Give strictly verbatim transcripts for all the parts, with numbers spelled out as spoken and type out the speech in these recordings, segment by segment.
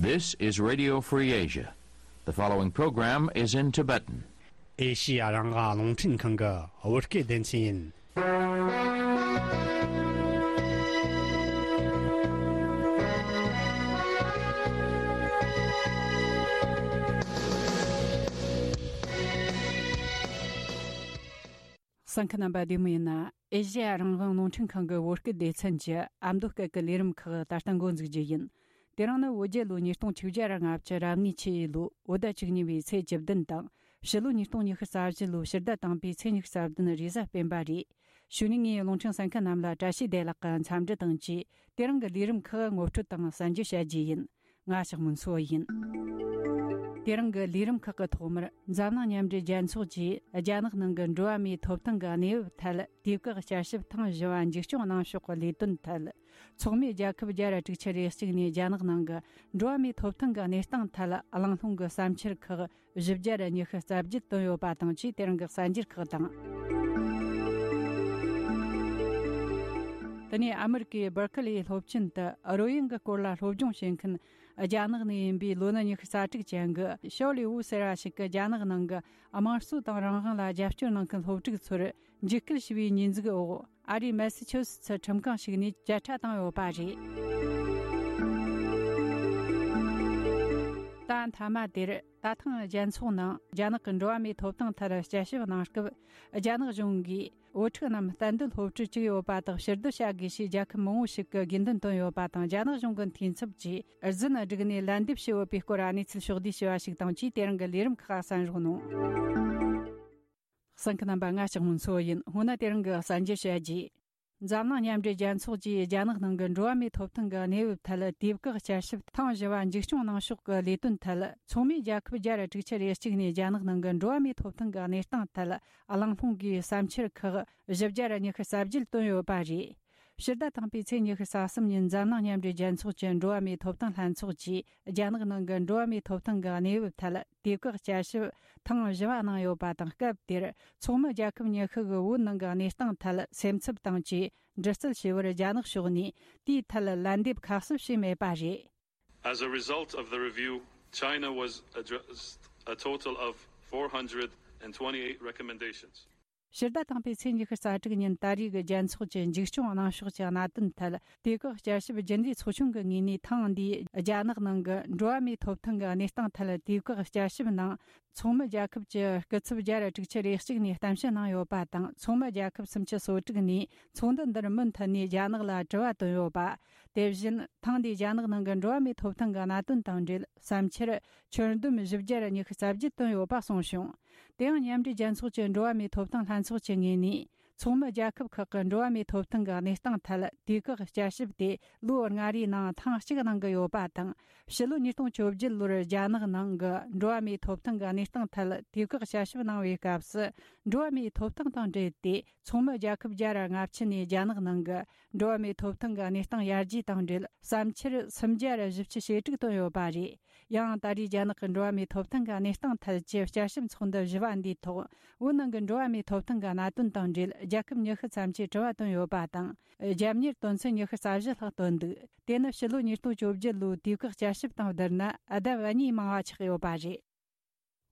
This is Radio Free Asia. The following program is in Tibetan. ཨེ་ཤི་ཡ་རང་དབང་རླུང་འཕྲིན་ཁང་གི་བོད་སྐད་སྡེ་ཚན་ཡིན། གསན་མཁན་རྣམ་པ་བདེ་མོ་ཡིན་ན། ཨེ་ཤི་ཡ་རང་དབང་རླུང་འཕྲིན་ཁང་གི་བོད་སྐད་སྡེ་ཚན་གྱི་ཨ་མདོ་སྐད་ཀྱི་ལས་རིམ་ཁག་ད་ལྟ་འགོ་འཛུགས་རྒྱུ་ཡིན། དེ་རིང་ནི་བོད་རྒྱལ་ལོ་ཉིས་སྟོང་བཅོ་ལྔ་རབ་གནས་ཆུ་ཡོས་ལོ་བོད་ཟླ་བཅུ་གཉིས་པའི་ཚེས་བཅུ་བདུན་དང་། ཕྱི་ལོ་ཉིས་སྟོང་ཉི་ཤུ་རྩ་བཞི་ལོའི་ཕྱི་ཟླ་དང་པོའི་ཚེས་ཉི་ཤུ་རྩ་བདུན་རེས་གཟའ་སྤེན་པ་རེད། གཞུག་ནས་ངས་རླུང་འཕྲིན་གསན་མཁན་རྣམས་ལ་བཀྲ་ཤིས་བདེ་ལེགས་ཀྱི་འཚམས་འདྲི་དང་བཅས། དེ་རིང་གི་ལས་རིམ་ཁག་ངོ་སྤྲོད་དང་གསན་རྒྱུ་བྱ་རྒྱུ་ཡིན། ང་ཞག་མུན་སོ་ཡིན། དེ་རིང་གི་ལས་རིམ་ཁག་གི་ཐོག་མར་འཛམ་གླིང་མཉམ་འབྲེལ་རྒྱལ་ཚོགས་ཀྱིས་རྒྱ་ནག་ནང་གི་འགྲོ་བ་མིའི་ཐོབ་ཐང་གི་གནས་བབ་ཐད་དུས་བཀག་བསྐྱར་ཞིབ་ཐེངས་བཞི་བ་མཇུག་སྐྱོང་གནང་ཕྱོགས་ཀྱི་ལས་དོན་ཐད། ཚོགས་མི་རྒྱལ་ཁབ་བརྒྱ་ར་དྲུག་ཅུ་རེ་གཅིག་ནས་རྒྱ་ནག་ནང་གི་འགྲོ་བ་མིའི་ཐོབ་ཐང་གི་གནས་སྟངས་ཐད་གླེང་སློང་གི་བསམ་འཆར་ཁག་བཞི་བརྒྱ་ར་ཉི་ཤུ་རྩ་བརྒྱད་བཏོན་ཡོད་པ་དང་བཅས། དེ་རིང་གི་གསར་འགྱུར་ཁག་དང་། དེ་ནས་ཨ་མི་རི་ཀའི་སྦར་ཁི་ལིའི་སློབ་ཆེན་དུ་རོལ་དབྱངས་ཀྱི་སྐོར་ལ་སློབ་སྦྱོང་བྱེད་མཁན་རྒྱ་ནག་ནས་ཡིན་པའི་ལོ་ན་ཉི་ཤུ་རྩ་དྲུག་ཅན་གྱི་ཞའོ་ལི་ཝུ་ཟེར་བ་ཞིག་གིས་རྒྱ་ནག་ནང་གི་དམངས་གཙོ་དང་རང་དབང་ལ་རྒྱབ་སྐྱོར་གནང་མཁན་སློབ་ཕྲུག་ཚོར་འཇིགས་སྐུལ་ཞུ་བའི་ཉེས་འཛུགས་འོག་ཨ་རིའི་མེ་སི་ཆུ་སི་ཚི་ཁྲིམས་ཁང་ཞིག་ནས་བཅད་ཁྲ་བཏང་ཡོད་པ་རེད། ད་མཐའ་མ་དེར། ད་ཐེངས་རྒྱལ་ཚོགས་ནང་རྒྱ་ནག་གི་འགྲོ་བ་མིའི་ཐོབ་ཐང་ཐད་བསྐྱར་ཞིབ་གནང་སྐབས། རྒྱ་ནག་གཞུང་གིས་བུ་ཕྲུག་རྣམས་གཏན་སྡོད་སློབ་ཕྲུག་བཅུག་ཡོད་པ་དག་ཕྱིར་བསྡུ་བྱ་དགོས་ཞེས་རྒྱལ་ཁབ་མང་བོ་ཞིག་གིས་དགོས་འདུན་བཏོན་ཡོད་པ་དང་། རྒྱ་ནག་གཞུང་གི་འཐུས་ཚབ་ཀྱིས་རྫུན་བསྒྲིགས་ནས་ལན་འདེབས་བྱས་ཡོད་པའི་སྐོར་གནས་ཚུལ་ཕྱོགས་བསྡུས་བྱས་པ་ཞིག་དང་བཅས། དེ་རིང་གི་ལས་རིམ་ཁག་གསན་རོགས་གནང་། གསན་མཁན་རྣམ་པ། ང་ཞག་མུན་སོ་ཡིན། སྔོན་ན་དེ་རིང་གི་གསར་འགྱུར་བཤད་རྒྱུ། འཛམ་གླིང་མཉམ་འབྲེལ་རྒྱལ་ཚོགས་ཀྱིས་རྒྱ་ནག་ནང་གི་འགྲོ་བ་མིའི་ཐོབ་ཐང་གི་གནས་བབ་ཐད་དུས་བཀག་བསྐྱར་ཞིབ་ཐེངས་བཞི་བ་མཇུག་སྐྱོང་གནང་ཕྱོགས་ཀྱི་ལས་དོན་ཐད། ཚོགས་མི་རྒྱལ་ཁབ་བརྒྱ་ར་དྲུག་ཅུ་རེ་གཅིག་ནས་རྒྱ་ནག་ནང་གི་འགྲོ་བ་མིའི་ཐོབ་ཐང་གི་གནས་སྟངས་ཐད་གླེང་སློང་གི་བསམ་འཆར་ཁག་བཞི་བརྒྱ་ར་ཉི་ཤུ་རྩ་བརྒྱད་བཏོན་ཡོད་པ་རེད། ཕྱི་ཟླ་དང་པོའི་ཚེས་ཉི་ཤུ་རྩ་གསུམ་ཉིན་འཛམ་གླིང་མཉམ་འབྲེལ་རྒྱལ་ཚོགས་ཀྱི་འགྲོ་བ་མིའི་ཐོབ་ཐང་ལྷན་ཚོགས་ཀྱིས་རྒྱ་ནག་ནང་གི་འགྲོ་བ་མིའི་ཐོབ་ཐང་གི་གནས་བབ་ཐད་དུས་བཀག་བསྐྱར་ཞིབ་ཐེངས་བཞི་བ་གནང་ཡོད་པ་དང་། སྐབས་དེར་ཚོགས་མི་རྒྱལ་ཁབ་ཉི་ཤུ་གིས་བོད་ནང་གི་གནས་སྟངས་ཐད་སེམས་འཚབ་དང་བཅས་འདྲི་རྩད་བྱས་པར། རྒྱ་ནག་ཕྱོགས་ནས་དེའི་ཐད་ལན་འདེབས་ཁ་གསབ་བྱས་མེད་པ་རེད། As a result of the review, China was addressed a total of four hundred and twenty-eight recommendations. ཕྱི་ཟླ་དང་པོའི་ཚེས་ཉི་ཤུ་རྩ་དྲུག་ཉིན་ད་རེས་ཀྱི་རྒྱལ་ཚོགས་ཀྱི་མཇུག་སྐྱོང་གནང་ཕྱོགས་ཀྱི་གནད་དོན་ཐད་དུས་བཀག་བསྐྱར་ཞིབ་རྒྱུན་ལས་ཚོགས་ཆུང་གི་ངོས་ནས། ཐེངས་འདིའི་རྒྱ་ནག་ནང་གི་འགྲོ་བ་མིའི་ཐོབ་ཐང་གི་གནས་སྟངས་ཐད་དུས་བཀག་བསྐྱར་ཞིབ་ནང་ཚོགས་མི་རྒྱལ་ཁབ་ཀྱི་སྐུ་ཚབ་བརྒྱ་ར་དྲུག་ཅུ་རེ་གཅིག་ནས་གཏམ་བཤད་གནང་ཡོད་པ་དང་། ཚོགས་མི་རྒྱལ་ཁབ་སུམ་ཅུ་སོ་དྲུག་ནས་ཚོགས་འདུ་འདིར་མུ་མཐུད་ནས་རྒྱ་ནག་ལ་དྲི་བ་བཏོན་ཡོད་པ། དེ་བཞིན་ཐེངས་འདིའི་རྒྱ་ནག་ནང་གི་འགྲོ་བ་མིའི་ཐོབ་ཐང་གི་གནད་དོན་དང་འབྲེལ་བསམ་འཆར་ཁྱོན་བསྡོམས་བཞི་བརྒྱ་ར་ཉི་ཤུ་རྩ་བརྒྱད་བཏོན་ཡོད་པ་གསུངས་བྱུང་། དེ་ཡང་མཉམ་འབྲེལ་རྒྱལ་ཚོགས་ཀྱི་འགྲོ་བ་མིའི་ཐོབ་ཐང་ལྷན་ཚོགས་ཀྱི་ངོས་ནས། ཚོགས་མི་རྒྱལ་ཁབ་ཁག་གི་འགྲོ་བ་མིའི་ཐོབ་ཐང་གི་གནས་སྟངས་ཐད་དུས་བཀག་བསྐྱར་ཞིབ་དེ་ལོ་ལྔ་རེའི་ནང་ཐེངས་གཅིག་གནང་གི་ཡོད་པ་དང་། ཕྱི་ལོ་ཉིས་སྟོང་བཅོ་བརྒྱད་ལོར་རྒྱ་ནག་ནང་གི་འགྲོ་བ་མིའི་ཐོབ་ཐང་གི་གནས་སྟངས་ཐད་དུས་བཀག་བསྐྱར་ཞིབ་གནང་བའི་སྐབས་སུ། འགྲོ་བ་མིའི་ཐོབ་ཐང་དང་འབྲེལ་ཏེ་ཚོགས་མི་རྒྱལ་ཁབ་བརྒྱ་ར་ལྔ་བཅུ་ནས་རྒྱ་ནག་ནང་གི་འགྲོ་བ་མིའི་ཐོབ་ཐང་གི་གནས་སྟངས་ཡར་རྒྱས་དང་འབྲེལ་བསམ་འཆར་སུམ་བརྒྱ་ར་བཞི་བཅུ་ཞེ་དྲུག་བཏོན་ཡོད་པ་རེད། ཡང་ད་རེས་རྒྱ་ནག་གི་འགྲོ་བ་མིའི་ཐོབ་ཐང་གི་གནས་སྟངས་ཐད་ཀྱི་བསྐྱར་ཞིབ་ཚོགས་འདུ་བཞི་བ་འདིའི་ཐོག་བོད་ནང་གི་འགྲོ་བ་མིའི་ཐོབ་ཐང་གི་གནད་དོན་དང་འབྲེལ་རྒྱལ་ཁབ་ཉི་ཤུ་ཙམ་གྱིས་དྲི་བ་བཏོན་ཡོད་པ་དང་། རྒྱབ་གཉེར་དོན་ཚན་ཉི་ཤུ་རྩ་བཞི་ལྷག་བཏོན་འདུག་དེ་ནི་ཕྱི་ལོ་ཉིས་སྟོང་བཅོ་བརྒྱད་ལོའི་དུས་བཀག་བསྐྱར་ཞིབ་དང་བསྡུར་ན་ལྡབ་གཉིས་མང་བ་ཆགས་ཡོད་པ་རེད།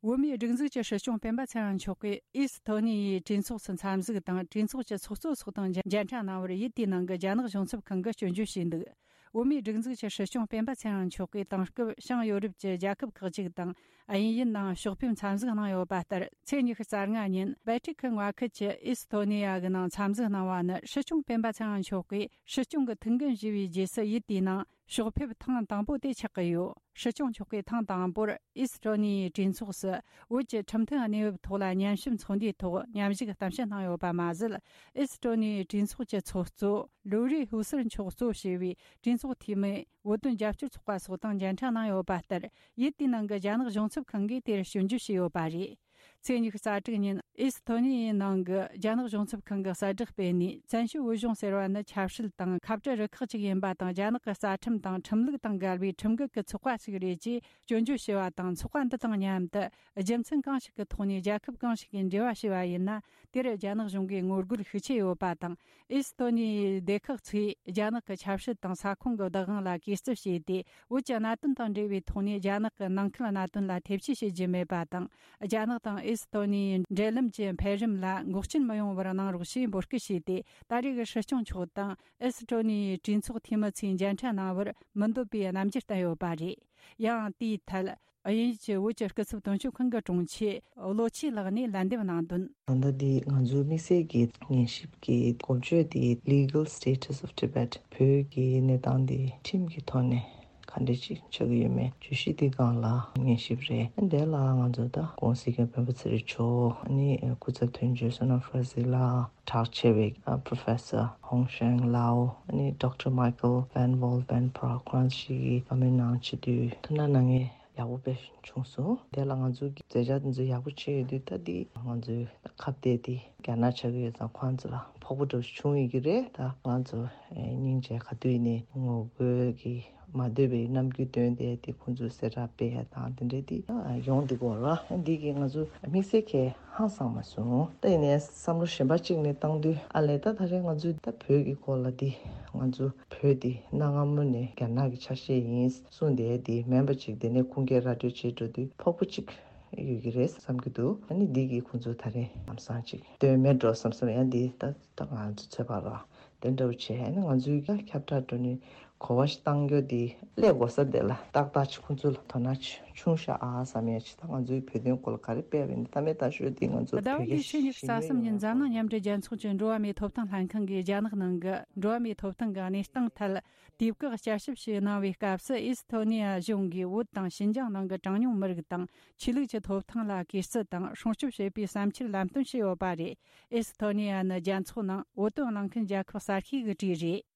བོད་མིའི་སྒྲིག་འཛུགས་ཀྱི་སྲིད་སྐྱོང་སྤེན་པ་ཚེ་རིང་མཆོག་གིས་ཨི་སི་ཐོ་ནི་ཡའི་གྲོས་ཚོགས་སུ་འཚམས་གཟིགས་དང་། གྲོས་ཚོགས་ཀྱི་ཚོགས་གཙོ་སོགས་དང་མཇལ་འཕྲད་གནང་བར་ཡུལ་དེའི་ནང་གི་རྒྱ་ནག་གཞུང་ཚབ་ཁང་གིས་སྐྱོན་བརྗོད་བྱས་འདུག་བོད་མིའི་སྒྲིག་འཛུགས་ཀྱི་སྲིད་སྐྱོང་སྤེན་པ་ཚེ་རིང་མཆོག་གིས་དེང་སྐབས་བྱང་ཡོ་རོབ་ཀྱི་རྒྱལ་ཁབ་ཁག་ཅིག་དང་དབྱིན་ཡུལ་ནང་ཕྱོགས་ཕེབས་འཚམས་གཟིགས་གནང་ཡོད་པ་ལྟར། ཚེས་ཉི་ཤུ་རྩ་ལྔ་ཉིན་སྦལ་ཏིག་གི་མངའ་ཁུལ་གྱི་ཨི་སི་ཐོ་ནི་ཡ་གི་ནང་འཚམས་གཟིགས་གནང་བ་ནི། སྲིད་སྐྱོང་སྤེན་པ་ཚེ་རིང་མཆོག་གིས་སྲིད་སྐྱོང་གི་ཐུགས་འགན་བཞེས་པའི་རྗེས་སུ་ཡུལ་དེའི་ནང་ཕྱོགས་ཕེབས་ཐེངས་དང་པོ་དེ་ཆགས་ཀྱི་ཡོད། སྲིད་སྐྱོང་མཆོག་གིས་ཐེངས་དང་པོར་ཨི་སི་ཐོ་ནི་ཡའི་གྲོས་ཚོགས་སུ་བོད་ཀྱི་ཁྲིམས་མཐུན་གནས་བབ་ཐོག་ལ་ཉམས་ཞིབ་ཚོགས་འདུའི་ཐོག་མཉམ་ཞུགས་གཏམ་བཤད་གནང་ཡོད་པ་མ་ཟད། ཨི་སི་ཐོ་ནི་ཡའི་གྲོས་ཚོགས་ཀྱི་ཚོགས་གཙོ་ལུའུ་རི་ཧུ་སར་མཆོག་གཙོ་བྱས་པའི་གྲོས་ཚོགས་འཐུས་མི། བོད་དོན་རྒྱབ་སྐྱོར་ཚོགས་པ་སོགས་དང་མཇལ་འཕྲད་གནང་ཡོད་པ་ལྟར། ཡུལ་དེའི་ནང་གི་རྒྱ་ནག་གཞུང་ཚབ་ཁང་གིས་དེར་སྐྱོན་བརྗོད་བྱས་ཡོད་པ་རེད། ཚེས་ཉི་ཤུ་རྩ་དྲུག་ཉིན་ཨི་སི་ཐོ་ནི་ཡའི་ནང་གི་རྒྱ་ནག་གཞུང་ཚབ་ཁང་གི་གསལ་བསྒྲགས་སྤེལ་ནས། བཙན་བྱོལ་བོད་གཞུང་ཟེར་བ་ནི་ཆབ་སྲིད་དང་ཁ་བྲལ་རུ་ཁག་ཅིག་ཡིན་པ་དང་། རྒྱ་ནག་གི་རྩ་ཁྲིམས་དང་ཁྲིམས་ལུགས་དང་འགལ་བའི་ཁྲིམས་འགལ་གྱི་ཚོགས་པ་ཞིག་རེད་ཅེས་སྐྱོན་བརྗོད་བྱས་པ་དང་། ཚོགས་པ་འདི་དང་མཉམ་དུ་རྒྱུ་མཚན་གང་ཞིག་གི་ཐོག་ནས་རྒྱལ་ཁབ་གང་ཞིག་གིས་འབྲེལ་བ་བྱས་པ་ཡིན་ན། དེར་རྒྱ་ནག་གཞུང་གིས་ངོ་རྒོལ་ཤུགས་ཆེ་ཡོད་པ་དང་། ཨི་སི་ཐོ་ནི་ཡའི་སྡེ་ཁག་ཚོས་རྒྱ་ནག་གི་ཆབ་སྲིད་དང་ས་ཁོངས་ཀྱི་བདག་དབང་ལ་གུས་བརྩི་བྱས་ཏེ། བོད་ཀྱི་གནད་དོན་དང་འབྲེལ་བའི་ཐོག་ནས་རྒྱ་ནག་གི་ནང་ཁུལ་གནད་དོན་ལ་ཐེ་བྱུས་བྱེད་རྒྱུ་མེད་པ་དང་། རྒྱ་ནག་དང་ཨི་སི་ཐོ་ནི་ཡའི་འབྲེལ་ལམ་གྱི་འཕེལ་རིམ་ལ་འགོག་རྐྱེན་མི་ཡོང་བར་གནང་རོགས་ཞེས་འབོད་སྐུལ་བྱས་ཏེ། ད་རེས་ཀྱི་སྲིད་སྐྱོང་མཆོག་དང་ཨི་སི་ཐོ་ནི་ཡའི་གྲོས་ཚོགས་འཐུས་མི་ཚོས་མཇལ་འཕྲད་གནང་བར་མི་འདོད་པའི་རྣམ་འགྱུར་བསྟན་ཡོད་པ་རེད། ཡང་དེའི་ཐད། དབྱིན་ཡུལ་གྱི་བོད་ཀྱི་སྐུ་ཚབ་དོན་གཅོད་ཁང་གི་དྲུང་ཆེ་བློ་ཆོས་ལགས་ནས་ལན་འདེབས་གནང་དོན། ད་ལྟ་འདི་ང་ཚོའི་དམིགས་བསལ་གྱི་ཉན་ཞིབ་ཀྱི་སྐོར་བརྗོད་དེ། Legal Status of Tibet, བོད་ཀྱི་གནས་སྟངས་འདི་ཁྲིམས་ཀྱི་ཐོག་ནས་ག་འདྲ་ཅིག་ཆགས་ཀྱི་ཡོད་མེད་བརྗོད་གཞི་འདི་སྒང་ལ་ཉན་ཞིབ་རེད། དེ་ལ་ང་ཚོ་ད་ྋགོང་ས་ྋསྐྱབས་མགོན་པོ་ཚེ་རིང་མཆོག་ཨ་ནི་སྐུ་ཚབ་དོན་གཅོད་བསོད་ནམས་ཧྥ་རན་སི་ལགས། གྲགས་ཆེ་བའི་ཨ་Professor Hong Shang Lao, ཨ་ནི་Doctor Michael Van Wall Van Praag ཁོང་ཞིག་གིས་བཀའ་མོལ་གནང་བྱེད་དུས་ཐུགས་སྣང་གནང་མཁན་ཡག་པོ་དཔེ་བྱུང་སོང་། དེ་ལ་ང་ཚོ་གི་མཛད་འཆར་འདི་ཚོ་ཡག་པོ་བྱས་ཡོད་དུས། ད་འདི་ང་ཚོའི་ཁ་གཏད་དེ་རྒྱ་ནག་ཆགས་ཀྱི་ཡོད་ཙང་ཁོང་ཚོ་ལ་ཕོག་པ་འདྲ་བོ་བྱུང་ཡོད་ཀྱི་རེད། ད་ང་ཚོ་ཨེ་སྙིང་རྗེ་ག་དུས་ནས་ངོ་རྒོལ་གྱི་མ་འདོད་པའི་རྣམ་འགྱུར་སྟོན་ཏེ། དེ་ཁོང་ཚོས་གསལ་བསྒྲགས་སྤེལ་ཡ་དང་དེ་འདྲའི་དེ་ཡོང་འདུག་གོ་ར། འདི་གིས་ང་ཚོ་དམིགས་བསལ་གྱི་ཧང་སང་མ་སོང་། ད་ཡིན་ནའི་བསམ་བློ་གཞན་པ་གཅིག་ནས་བཏང་དུས། ཨ་ལས། ད་ད་རེས་ང་ཚོས་ད་བོད་ཀྱི་སྐོར་ལ་འདི་ང་ཚོ་བོད་འདི་གནའ་སྔ་མོ་ནས་རྒྱ་ནག་གི་ཆ་ཤས་ཡིན་གསུངས་བསྡད་འདི་མིན་པ་ཅིག་དེ་ནས་ཁུངས་སྐྱེལ་ར་སྤྲོད་བྱེད་འགྲོ་དུས་ཕོག་པ་ཅིག་ཡོད་ཀྱི་རེད་བསམ་གྱི་འདུག་ཨ་ནི་འདི་གིས་ཁོང་ཚོ་ད་རེས་ལམ་སང་ཅིག་དོན་མེད་འགྲོ་བསམ་བསམ། ཡང་འདི་ད་ད་ང་ཚོ་ཚོད་དཔག་ར་དེ་འདྲ་བོ་བྱས། ཨ་ནི་ང་ཚོའི་ཁྱབ་བསྒྲགས་འགྲོ་ནི་གོ་བ་ཞིག་བཏང་རྒྱུ་དེ་སླེབས་དགོས་ས་དེ་ལ་ཏག་ཏག་ཅིག་ཁོང་ཚོ་ལ་དོ་སྣང་ཆུང་ཤག་ཨ་བསམ་ཡ་ཅིག་ད་ང་ཚོའི་བོད་དོན་སྐོར་ལ་ག་རེ་སྤེལ་བ་ཡིན་ད་མེད་ད་ཤོད་དེ་ང་ཚོ་ཟླ་བ་བོད་འདིའི་ཆེད་ཉི་ཤུ་རྩ་གསུམ་ཉིན་འཛམ་གླིང་མཉམ་འབྲེལ་རྒྱལ་ཚོགས་ཀྱི་འགྲོ་བ་མིའི་ཐོབ་ཐང་ལྷན་ཁང་གིས་རྒྱ་ནག་ནང་གི་འགྲོ་བ་མིའི་ཐོབ་ཐང་གི་གནས་སྟངས་ཐད་དུས་བཀག་བསྐྱར་ཞིབ་ཞིག་གནང་བའི་སྐབས་སུ། ཨི་སི་ཐོ་ནི་ཡ་གཞུང་གིས་བོད་དང་ཞིན་ཅང་ནང་གི་གྲངས་ཉུང་མི་རིགས་དང་ཆོས་ལུགས་ཀྱི་ཐོབ་ཐང་ལ་གུས་བརྩི་དང་སྲུང་སྐྱོབ་བྱེད་པའི་བསམ་འཆར་ལམ་སྟོན་བྱས་ཡོད་པ་རེད། ཨི་སི་ཐོ་ནི་ཡ་ནི་རྒྱལ་ཚོགས་ནང་བོད་དོན་གླེང་མཁན་རྒྱལ་ཁབ་གསར་ཤོས་ཀྱི་གྲས་རེད།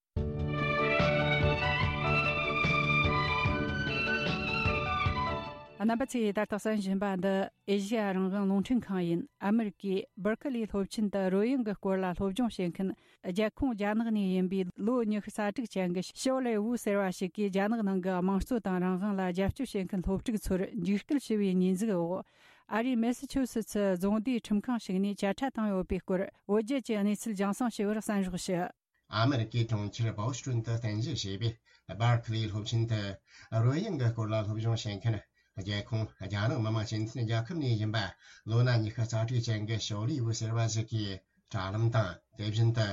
རྣམ་པ་ཚོས་ད་ལྟ་གསན་བཞིན་པ་འདི་ཨེ་ཤེ་ཡ་རང་དབང་རླུང་འཕྲིན་ཁང་ཡིན། ཨ་མེ་རི་ཀའི་སྦར་ཁི་ལིའི་སློབ་ཆེན་དུ་རོལ་དབྱངས་ཀྱི་སྐོར་ལ་སློབ་སྦྱོང་བྱེད་མཁན། རྒྱལ་ཁོངས་རྒྱ་ནག་ནས་ཡིན་པའི་ལོ་ཉི་ཤུ་རྩ་དྲུག་ཅན་གྱི་ཞའོ་ལེ་ཝུ་ཟེར་བ་ཞིག་གིས་རྒྱ་ནག་ནང་གི་དམངས་གཙོ་དང་རང་དབང་ལ་རྒྱབ་སྐྱོར་བྱེད་མཁན་སློབ་ཕྲུག་ཚོར་འཇིགས་སྐུལ་ཞུ་བའི་ཉེས་འཛུགས་འོག་ཨ་རིའི་མེ་སི་ཆུ་སི་ཚི་རྫོང་སྡེའི་ཁྲིམས་ཁང་ཞིག་ནས་བཅད་ཁྲ་བཏང་ཡོད་པའི་སྐོར། བོད་རྒྱ་གྱི་གནས་ཚུལ་རྒྱང་སྲིང་ཞུ་བར་གསན་རོགས་ཞུ། ཨ་མེ་རི་ཀའི་གྲོང་ཁྱེར་བོ་སི་ཊོན་དུ་རྟེན་གཞི་བྱས་པའི་སྦར་ཁི་ལིའི་སློབ་ཆེན་དུ་རོལ་དབྱངས་ཀྱི་སྐོར་ལ་སློབ་སྦྱོང་བྱེད་མཁན་རྒྱལ་ཁོངས་རྒྱ་ནག་མི་དམངས་སྤྱི་མཐུན་རྒྱལ་ཁབ་ནས་ཡིན་པ་ལོ་ན་ཉི་ཤུ་རྩ་དྲུག་ཅན་གྱི་ཞའོ་ལི་ཝུ་ཟེར་བ་ཞིག་གིས་དྲ་ལམ་དང་། དེ་བཞིན་དུ་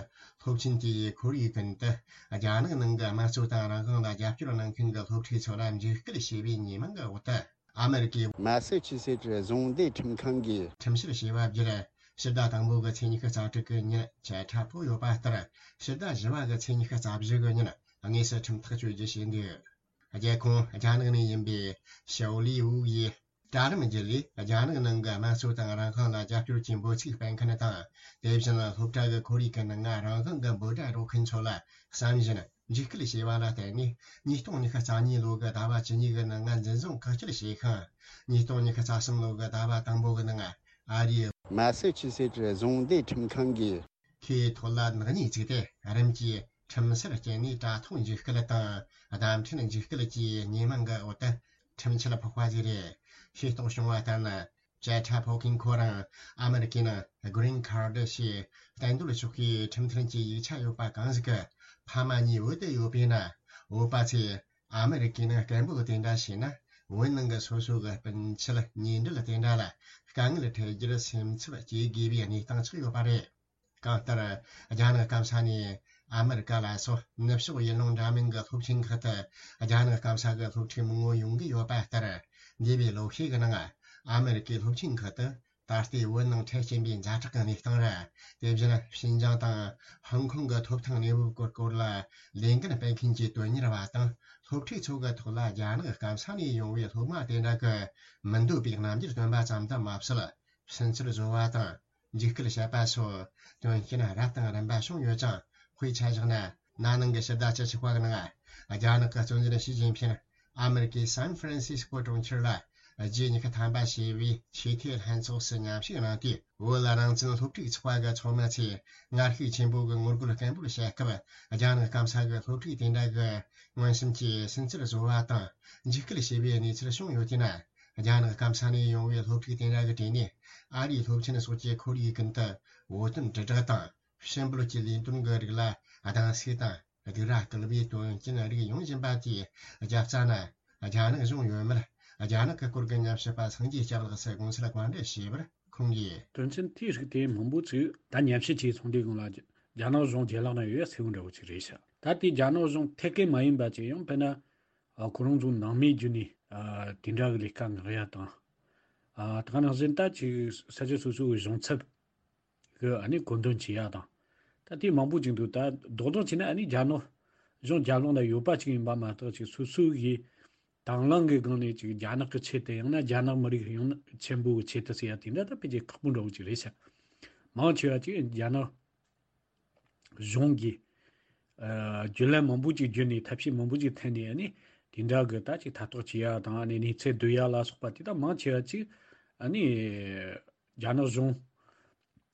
སློབ་ཆེན་དེའི་ཁོར་ཡུག་ཀུན་ཏུ་རྒྱ་ནག་ནང་གི་དམངས་གཙོ་དང་རང་དབང་ལ་རྒྱབ་སྐྱོར་གནང་མཁན་གྱི་སློབ་ཕྲུག་ཚོ་ལ་འཇིགས་སྐུལ་བྱས་པའི་ཉེས་མིང་གི་འོག་ཏུ། ཨ་མེ་རི་ཀའི་མ་སེ་ཆུ་སེ་ཊི་རྫོང་སྡེའི་ཁྲིམས་ཁང་གིས་ཁྲིམས་བཤེར་བྱས་པ་བརྒྱུད། ཕྱི་ཟླ་དང་པོ་གི་ཚེས་ཉི་ཤུ་རྩ་དྲུག་གི་ཉིན་བཅད་ཁྲ་ཕོག་ཡོད་པ་ལྟར། ཕྱི་ཟླ་བཞི་པ་གི་ཚེས་ཉི་ཤུ་རྩ་བཞི་གི་ཉིན་དངོས་སུ་ཁྲིམས་ཐག་གཅོད་རྒྱུ་བྱས་འདུག་རྒྱལ་ཁོངས་རྒྱ་ནག་ནས་ཡིན་པའི་ཞའོ་ལི་ཝུ་ཡིས་དྲ་ལམ་བརྒྱུད་ལས་རྒྱ་ནག་ནང་གི་དམངས་གཙོ་དང་རང་དབང་ལ་རྒྱབ་སྐྱོར་གྱི་འབོད་ཚིག་སྤེལ་མཁན་དང་། དེ་བཞིན་སློབ་གྲྭ་གི་ཁོར་ཡུག་གི་ནང་ང་རང་དབང་གི་འབོད་སྒྲ་སྒྲོག་མཁན་ཚོ་ལ་བསམ་བཞིན་འཇིགས་སྐུལ་བྱས་པ་ལ་བརྟེན་ནས། ཉིས་སྟོང་ཉི་ཤུ་རྩ་གཉིས་ལོ་གི་ཟླ་བ་བཅུ་གཉིས་གི་ནང་ང་འཛིན་བཟུང་བཀག་སྐྱིལ་བྱས་ཤིང་། ཉིས་སྟོང་ཉི་ཤུ་རྩ་གསུམ་ལོ་གི་ཟླ་བ་དང་པོ་གི་ནང་ཨ་རིའི་མ་སེ་ཆུ་སེ་ཊི་རྫོང་སྡེའི་ཁྲིམས་ཁང་གིས་ཁོའི་ཐོད་ལ་ནག་ཉེས་བཙུགས་ཏེ། རིམ་གྱིས་ཁྲིམས་སར་བསྐྱལ་ནས་དྲ་ཐོག་འཇིགས་སྐུལ་དང་བརྡ་འཕྲིན་འཇིགས་སྐུལ་གྱི་ཉེས་མིང་གི་འོག་ཏུ་ཁྲིམས་ཆད་ཕོག་པ་ཞིག་རེད། ཤེས་རྟོགས་བྱུང་བ་ལྟར་ན། བཅད་ཁྲ་ཕོག་མཁན་ཁོ་རང་ཨ་མེ་རི་ཀའི་ནང་Green Card ཞེས་གཏན་སྡོད་ཆོག་མཁན་ཁྲིམས་མཐུན་གྱི་ཡིག་ཆ་ཡོད་པ་གང་ཞིག་གི་ཕ་མ་གཉིས་བོད་དུ་ཡོད་པས་ན། བོད་པ་ཚོས་ཨ་མེ་རི་ཀའི་ནང་སྐད་འབོད་དེ་འདྲ་བྱས་ན། བོད་ནང་གི་སོ་སོ་གི་སྤུན་མཆེད་ཉེ་འབྲེལ་དེ་འདྲ་ལ་དཀའ་ངལ་འཕྲད་རྒྱུར་སེམས་འཚབ་སྐྱེ་དགོས་པའི་གནས་སྟངས་ཆགས་ཡོད་པ་རེད། གང་ལྟར། རྒྱ་ནག་སྐམ་ས་ནས་ཨ་མེ་རི་ཀ་ལ་སོགས་ནུབ་ཕྱོགས་ཡུལ་ལུང་འདྲ་མིན་གྱི་སློབ་ཆེན་ཁག་ཏུ་རྒྱ་ནག་སྐམ་ས་གི་སློབ་ཕྲུག་མང་པོ་ཡོང་གི་ཡོད་པ་ལྟར། འདས་པའི་ལོ་ཤས་ཀྱི་ནང་ཨ་མེ་རི་ཀའི་སློབ་ཆེན་ཁག་ཏུ་ད་ལྟའི་བོད་ནང་འཕྲད་ཀྱིན་པའི་ཛ་དྲག་གི་གནས་སྟངས་རེད། དེ་བཞིན་ཞིན་ཅང་དང་ཧོང་ཀོང་གི་ཐོབ་ཐང་གནས་བབ་སྐོར་སྐོར་ལ་ལས་འགན་སྤེལ་མཁན་གྱི་དོན་གཉེར་བ་དང་སློབ་ཕྲུག་ཚོ་གི་ཐོག་ལ་རྒྱ་ནག་སྐམ་ས་ནས་ཡོང་བའི་སློབ་མ་དེ་འདྲ་གི་མི་འདོད་པའི་རྣམ་འགྱུར་སྟོན་པ་ཙམ་དུ་མ་ཟད། ཕྱིན་ཆད་བཟོ་བ་དང་། འཇིགས་སྐུལ་བྱེད་པ་སོགས་དོན་རྐྱེན་རབ་དང་རིམ་པ་བྱུང་ཡོད་ཅིང་། དཔེ་ཆ་བཞག་ན། ན་ནིང་གི་ཕྱི་ཟླ་བཅུ་གཅིག་པ་གི་ནང་རྒྱ་ནག་གི་གཙོ་འཛིན་ཞི་ཅིན་ཕིང་ཨ་མེ་རི་ཀའི་སན་ཧྥ་རན་སིས་ཀོ་གྲོང་ཁྱེར་ལ་ རྗེས་ཉི་ཤུ་ཐམ་པ་བྱས་པའི་ཆེས་མཐོའི་ལྷན་ཚོགས་སུ་མཉམ་ཞུགས་གནང་སྟེ། བོད་རང་བཙན་སློབ་ཕྲུག་ཚོགས་པ་གི་ཚོགས་མི་ཚོས་ངར་ཤུགས་ཆེན་པོ་གི་ངོ་རྒོལ་སྐད་འབོད་བྱས་སྐབས། རྒྱ་ནག་སྐམ་ས་གི་སློབ་ཕྲུག་དེ་འདྲ་གི་མངོན་སུམ་གྱིས་སུན་གཙེར་བཟོ་བ་དང་འཇིགས་སྐུལ་བྱས་པའི་གནས་ཚུལ་བྱུང་ཡོད་དེ་ན། རྒྱ་ནག་སྐམ་ས་ནས་ཡོང་བའི་སློབ་ཕྲུག་དེ་འདྲ་གི་གྲས་ནས་ཨ་རིའི་སློབ་ཆེན་སོགས་ཀྱི་ཁོར་ཡུག་ཀུན་ཏུ་བོད་དོན་དྲིལ་བསྒྲགས་དང་། ཕྱི་འབུལ་གྱི་ལས་དོན་གྱི་རིགས་ལ་སྡང་ཟུག་དང་སྡིགས་ར་སྐུལ་བའི་དོན་རྐྱེན་རིགས་ཡོང་བཞིན་པ་དེས། རྒྱབ་རྩ་ན་རྒྱ་ནག་གཞུང་ཡོད་མེད། རྒྱ་ནག་གི་སྐོར་གྱི་ཉམས་ཞིབ་པ་སངས་རྒྱས་སྐྱབས་ལགས་སུ་དགོངས་འཆར་བཀའ་འདྲི་ཞུས་པར། ཁོང་གིས། དོན་ཚན་དེའི་རིགས་དེ་མང་པོ་ཅིག་ད་ཉམས་ཞིབ་བྱས་སོང་དུས་སྒང་ལ། རྒྱ་ནག་གཞུང་རྒྱལ་ལག་ན་ཡོད་ཡ་གསལ་བོ་འདྲ་བོ་ཅིག་རེད་ཤག་ད་དེ་རྒྱ་ནག་གཞུང་ཐད་ཀའི་མ་ཡིན་པ་ཅིག་ཡང་དཔེར་ན། ཨ། ཁོ་རང་ཚོ་ནང་མིའི་བརྒྱུད་ནས། ཨ། དེ་འདྲ་གི་ལས་ཀ་མངགས་ཡ་དང་། ཨ། ད་ག་ནང་བཞིན་ད་ཅིག་ས་ཆ་སོ་སོ་གི་གཞུང་ཚབ་གི་ཨ་ནི་བཀོད་འདོམས་བྱེད་ཡ་དང་། ད་དེ་མང་པོ་ཅིག་འདུག་ད་རྡོག་རྡོག་བྱས་ན་ཨ་ནི་རྒྱ་ནག་གཞུང་རྒྱབ་ལོགས་ན་ཡོད་པ་ཅིག་ཡིན་པ་མ་གཏོགས། ཅིག་སོ་སོ་གི་དང་བླངས་ཀྱི་སྒང་ནས་ཅིག་རྒྱ་ནག་གི་ཆེད་དུ། ཡང་ན་རྒྱ་ནག་མི་རིགས་ཡོངས་ཆེན་པོ་གི་ཆེད་དུ་ཟེར་ཡ་དེ་འདྲ་ད་ཕལ་ཆེར་ཁག་པོ་འདྲ་བོ་ཅིག་རེད་ཤག་མང་ཆེ་བ་ཅིག་རྒྱ་ནག་གཞུང་གིས། ཨ། བརྒྱུད་ལམ་མང་པོ་ཅིག་བརྒྱུད་ནས། ཐབས་ཤེས་མང་པོ་ཅིག་འཐེན་ནས། ཨ་ནི་དེ་འདྲ་གི་ད་ཅིག་ཐ་གཏོགས་བྱེད་ཡ་དང་། ཨ་ནི་གནས་ཚུལ་བསྡུ་ཡ་ལ་སོགས་པ་དེ་དག་མང་ཆེ་བ་ཅིག་ཨ་ནི་རྒྱ་ནག་གཞུང་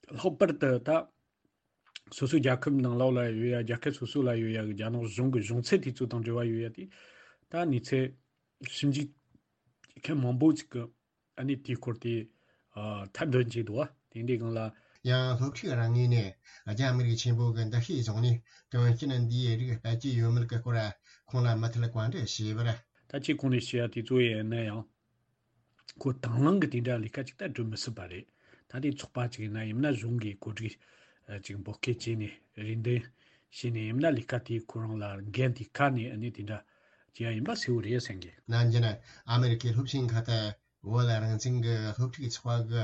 ལྷག་པར་དུ་ད་སོ་སོའི་རྒྱལ་ཁབ་ནང་ལོགས་ལ་ཡོད་ཡ། རྒྱལ་ཁབ་སོ་སོ་ལ་ཡོད་ཡ་གི་རྒྱ་ནག་གཞུང་གི་གཞུང་ཚབ་དེ་ཚོ་དང་འབྲེལ་བ་ཡོད་ཡ་དེ། ད་གནས་ཚུལ་ཞིབ་འཇུག་མཁན་མང་པོ་ཅིག་གིས་ཨ་ནི་དེའི་སྐོར་དེ། ཨ། ཐད་འདོན་བྱས་འདུག་བ། དེ་འདྲའི་སྒང་ལ། ཡང་སློབ་ཕྲུག་རང་ངོས་ནས་རྒྱ་མི་རིགས་ཆེན་པོ་གི་འདུ་ཤེས་བཟུང་ནས། དོན་རྐྱེན་འདིའི་རིགས་སྤེལ་གྱི་ཡོད་མེད་ཀྱི་སྐོར་ཁོང་ལ་མུ་མཐུད་བཀའ་འདྲི་བྱས་པར། ད་ཅི་གོང་ནས་བཤད་ཡ་དེ་ཚོ་ཡིན་ན་ཡང་། ཁོ་དང་བླངས་ཀྱི་དེ་འདྲ་ལས་ཀ་ཅིག་ད་སྒྲུབ་མི་སྲིད་པ་རེད། ད་དེ་ཚོགས་པ་ཅིག་ཡིན་ན། ཡིན་ན་གཞུང་གིས་གོ་སྒྲིག་ཅིག་འབོད་སྐུལ་བྱས་ནས་རེ་འདུན་བྱས་ནས། ཡིན་ན་ལས་ཀ་དེ་ཁོ་རང་ལ་འགན་དེ་ཁ་ནས་ཨ་ནི་དེ་འདྲ་བྱེད་ཡ་ཡིན་པ་གསལ་བོ་རེད་བསམ་གི། ནམ་རྒྱུན་ཨ་མི་རི་ཀའི་སློབ་ཆེན་ཁག་ཏུ་བོད་རང་བཙན་གྱི་སློབ་ཕྲུག་ཚོགས་པ་གི་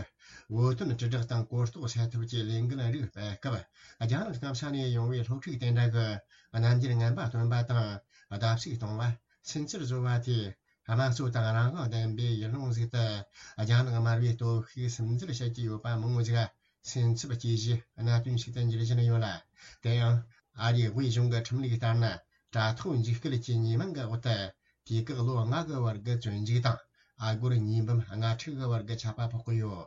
བོད་དོན་དྲིལ་བསྒྲགས་དང་གོ་རྟོགས་སེལ་ཐབས་ཀྱི་ལས་འགུལ་རིགས་སྤེལ་སྐབས། རྒྱ་ནག་སྐམ་ས་ནས་ཡོང་བའི་སློབ་ཕྲུག་དེ་འདྲ་གི་རྣམ་འགྱུར་ངན་པ་སྟོན་པ་དང་། བརྡབ་གསིག་གཏོང་བ། སུན་གཙེར་བཟོ་བ་དེས། དམངས་གཙོ་དང་རང་དབང་ལྡན་པའི་ཡུལ་ལུང་ཟིག་ཏུ་རྒྱ་ནག་དམར་པོའི་སྟོབས་ཤུགས་སིམ་འཛུལ་བྱེད་ཀྱི་ཡོད་པ་མང་བོ་ཟིག་སེམས་འཚབ་སྐྱེ་གཞི་གནད་དོན་ཞིག་ཏུ་འགྱུར་བཞིན་ཡོད་ལ། དེ་ཡང་ཨ་རིའི་དབུས་གཞུང་གི་ཁྲིམས་ལུགས་ལྟར་ན། དྲ་ཐོག་འཇིགས་སྐུལ་གྱི་ཉེས་མིང་གི་འོག་ཏུ་དུས་བཀག་ལོ་ལྔ་གི་བར་གྱི་བཙོན་འཇུག་དང་། ཨ་སྒོར་ཉེས་འབུམ་ལྔ་ཁྲི་གི་བར་གྱི་ཆད་པ་ཕོག་གི་ཡོད།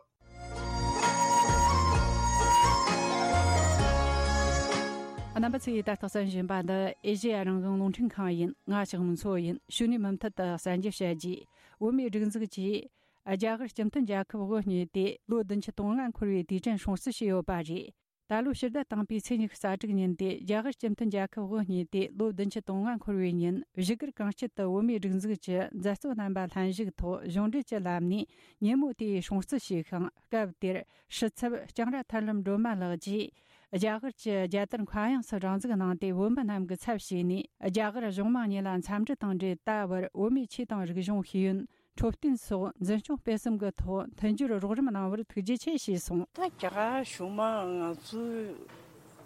རྣམ་པ་ཚོས་ད་ལྟ་གསན་བཞིན་པ་འདི་ཨེ་ཤེ་ཡ་རང་དབང་རླུང་འཕྲིན་ཁང་ཡིན། ང་ཞག་མི་ཚོ་ཡིན། ཞུ་ནས་མུ་མཐུད་དུ་གསན་རྒྱུ་བཤད་རྒྱུ། བོད་མིའི་སྒྲིག་འཛུགས་ཀྱིས་རྒྱ་གར་སྤྱི་མཐུན་རྒྱལ་ཁབ་དབུ་བརྙེས་ཏེ་ལོ་བདུན་ཅུ་དོན་ལྔ་འཁོར་བའི་དུས་དྲན་སྲུང་བརྩི་བྱས་ཡོད་པ་རེད། ད་ལོ་ཕྱི་ཟླ་དང་པོའི་ཚེས་ཉི་ཤུ་རྩ་དྲུག་ཉིན་ཏེ། རྒྱ་གར་སྤྱི་མཐུན་རྒྱལ་ཁབ་དབུ་བརྙེས་ཏེ་ལོ་བདུན་ཅུ་དོན་ལྔ་འཁོར་བའི་ཉིན། བཞུགས་སྒར་གངས་སྐྱིད་དུ་བོད་མིའི་སྒྲིག་འཛུགས་ཀྱི་མཛད་གཙོ་རྣམ་པ་ལྷན་ཞུགས་ཐོག་གཞུང་འབྲེལ་གྱི་ལམ་ནས་ཉིན་མོ་དེའི་སྲུང་བརྩི་བྱས་ཤིང་། སྐབས་དེར་ཕྱི་ཚབ་ལྕང་ར་ཐར་ལམ་སྒྲོལ་མ་ལགས་ཀྱིས། རྒྱ་གར་གྱི་རྒྱལ་དར་མཁའ་དབྱིངས་སུ་རང་འཛུགས་གནང་སྟེ། བོད་མི་རྣམས་ཀྱི་ཚབ་བྱས་ནས་རྒྱ་གར་གཞུང་མང་གཉིས་ལ་འཚམས་འདྲི་དང་འབྲེལ། ད་བར་བོད་མིའི་ཆོས་དང་རིག་གཞུང་ཤེས་ཡོན། འཕྲོད་བསྟེན་སོགས་འཛིན་སྐྱོང་སྤེལ་གསུམ་གྱི་ཐོག་མཐུན་སྦྱོར་རོགས་རམ་གནང་བར་ཐུགས་རྗེ་ཆེ་ཞེས་གསུངས། ད་རྒྱ་གར་གཞུང་མང་ང་ཚོའི་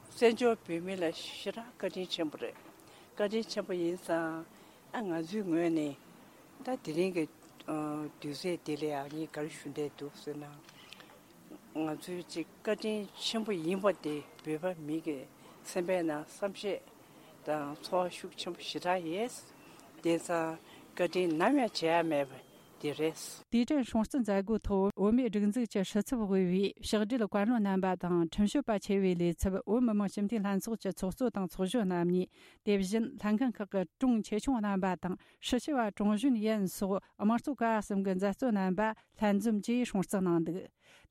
བཙན་བྱོལ་བོད་མི་ལ་ཞེ་དྲག་བཀའ་དྲིན་ཆེན་པོ་རེད། བཀའ་དྲིན་ཆེན་པོ་ཡིན་ཙང་། ཨ། ང་ཚོའི་ངོས་ནས་ད་དེ་རིང་གི་ཨ་དུས་ཚོད་འདི་ལ་ཡང་ངས་ག་རེ་ཞུ་འདོད་འདུག་ཟེར་ན། ང་ཚོའི་ཅིག་བཀའ་དྲིན་ཆེན་པོ་ཡིན་པ་དེ་བོད་པ་མི་གི་སེམས་པའི་ནང་བསམ་ཤེས་དང་ཚོར་བ་ཤུགས་ཆེན་པོ་ཞེ་དྲག་ཡོད། དེང་སང་བཀའ་དྲིན་ནམ་ཡང་བརྗེད་ཡ་མེད་པ་དེ་རེད། དུས་དྲན་སྲུང་བརྩི་མཛད་སྒོའི་ཐོག་བོད་མིའི་སྒྲིག་འཛུགས་ཀྱི་སྲིད་ཚབ་དབུས་པའི་ཕྱག་སྦྲེལ་བཀའ་བློན་རྣམ་པ་དང་ཁྲིམས་ཞིབ་པ་ཆེ་བའི་ལས་ཚབ། བོད་མི་མང་སྤྱི་འཐུས་ལྷན་ཚོགས་ཀྱི་ཚོགས་གཙོ་དང་ཚོགས་གཞོན་རྣམ་གཉིས། དེ་བཞིན་ལྷན་ཁང་ཁག་གི་དྲུང་ཆེ་ཆུང་རྣམ་པ་དང་། ཧྲི་ཞི་བ་ཀྲུང་ཞུན་ཡན་སོགས་དམངས་གཙོ་ཀ་གསུམ་གྱི་མཛད་གཙོ་རྣམ་པ་ལྷན་འཛོམས་ཀྱིས་སྲུང་བརྩི་གནང་འདུག་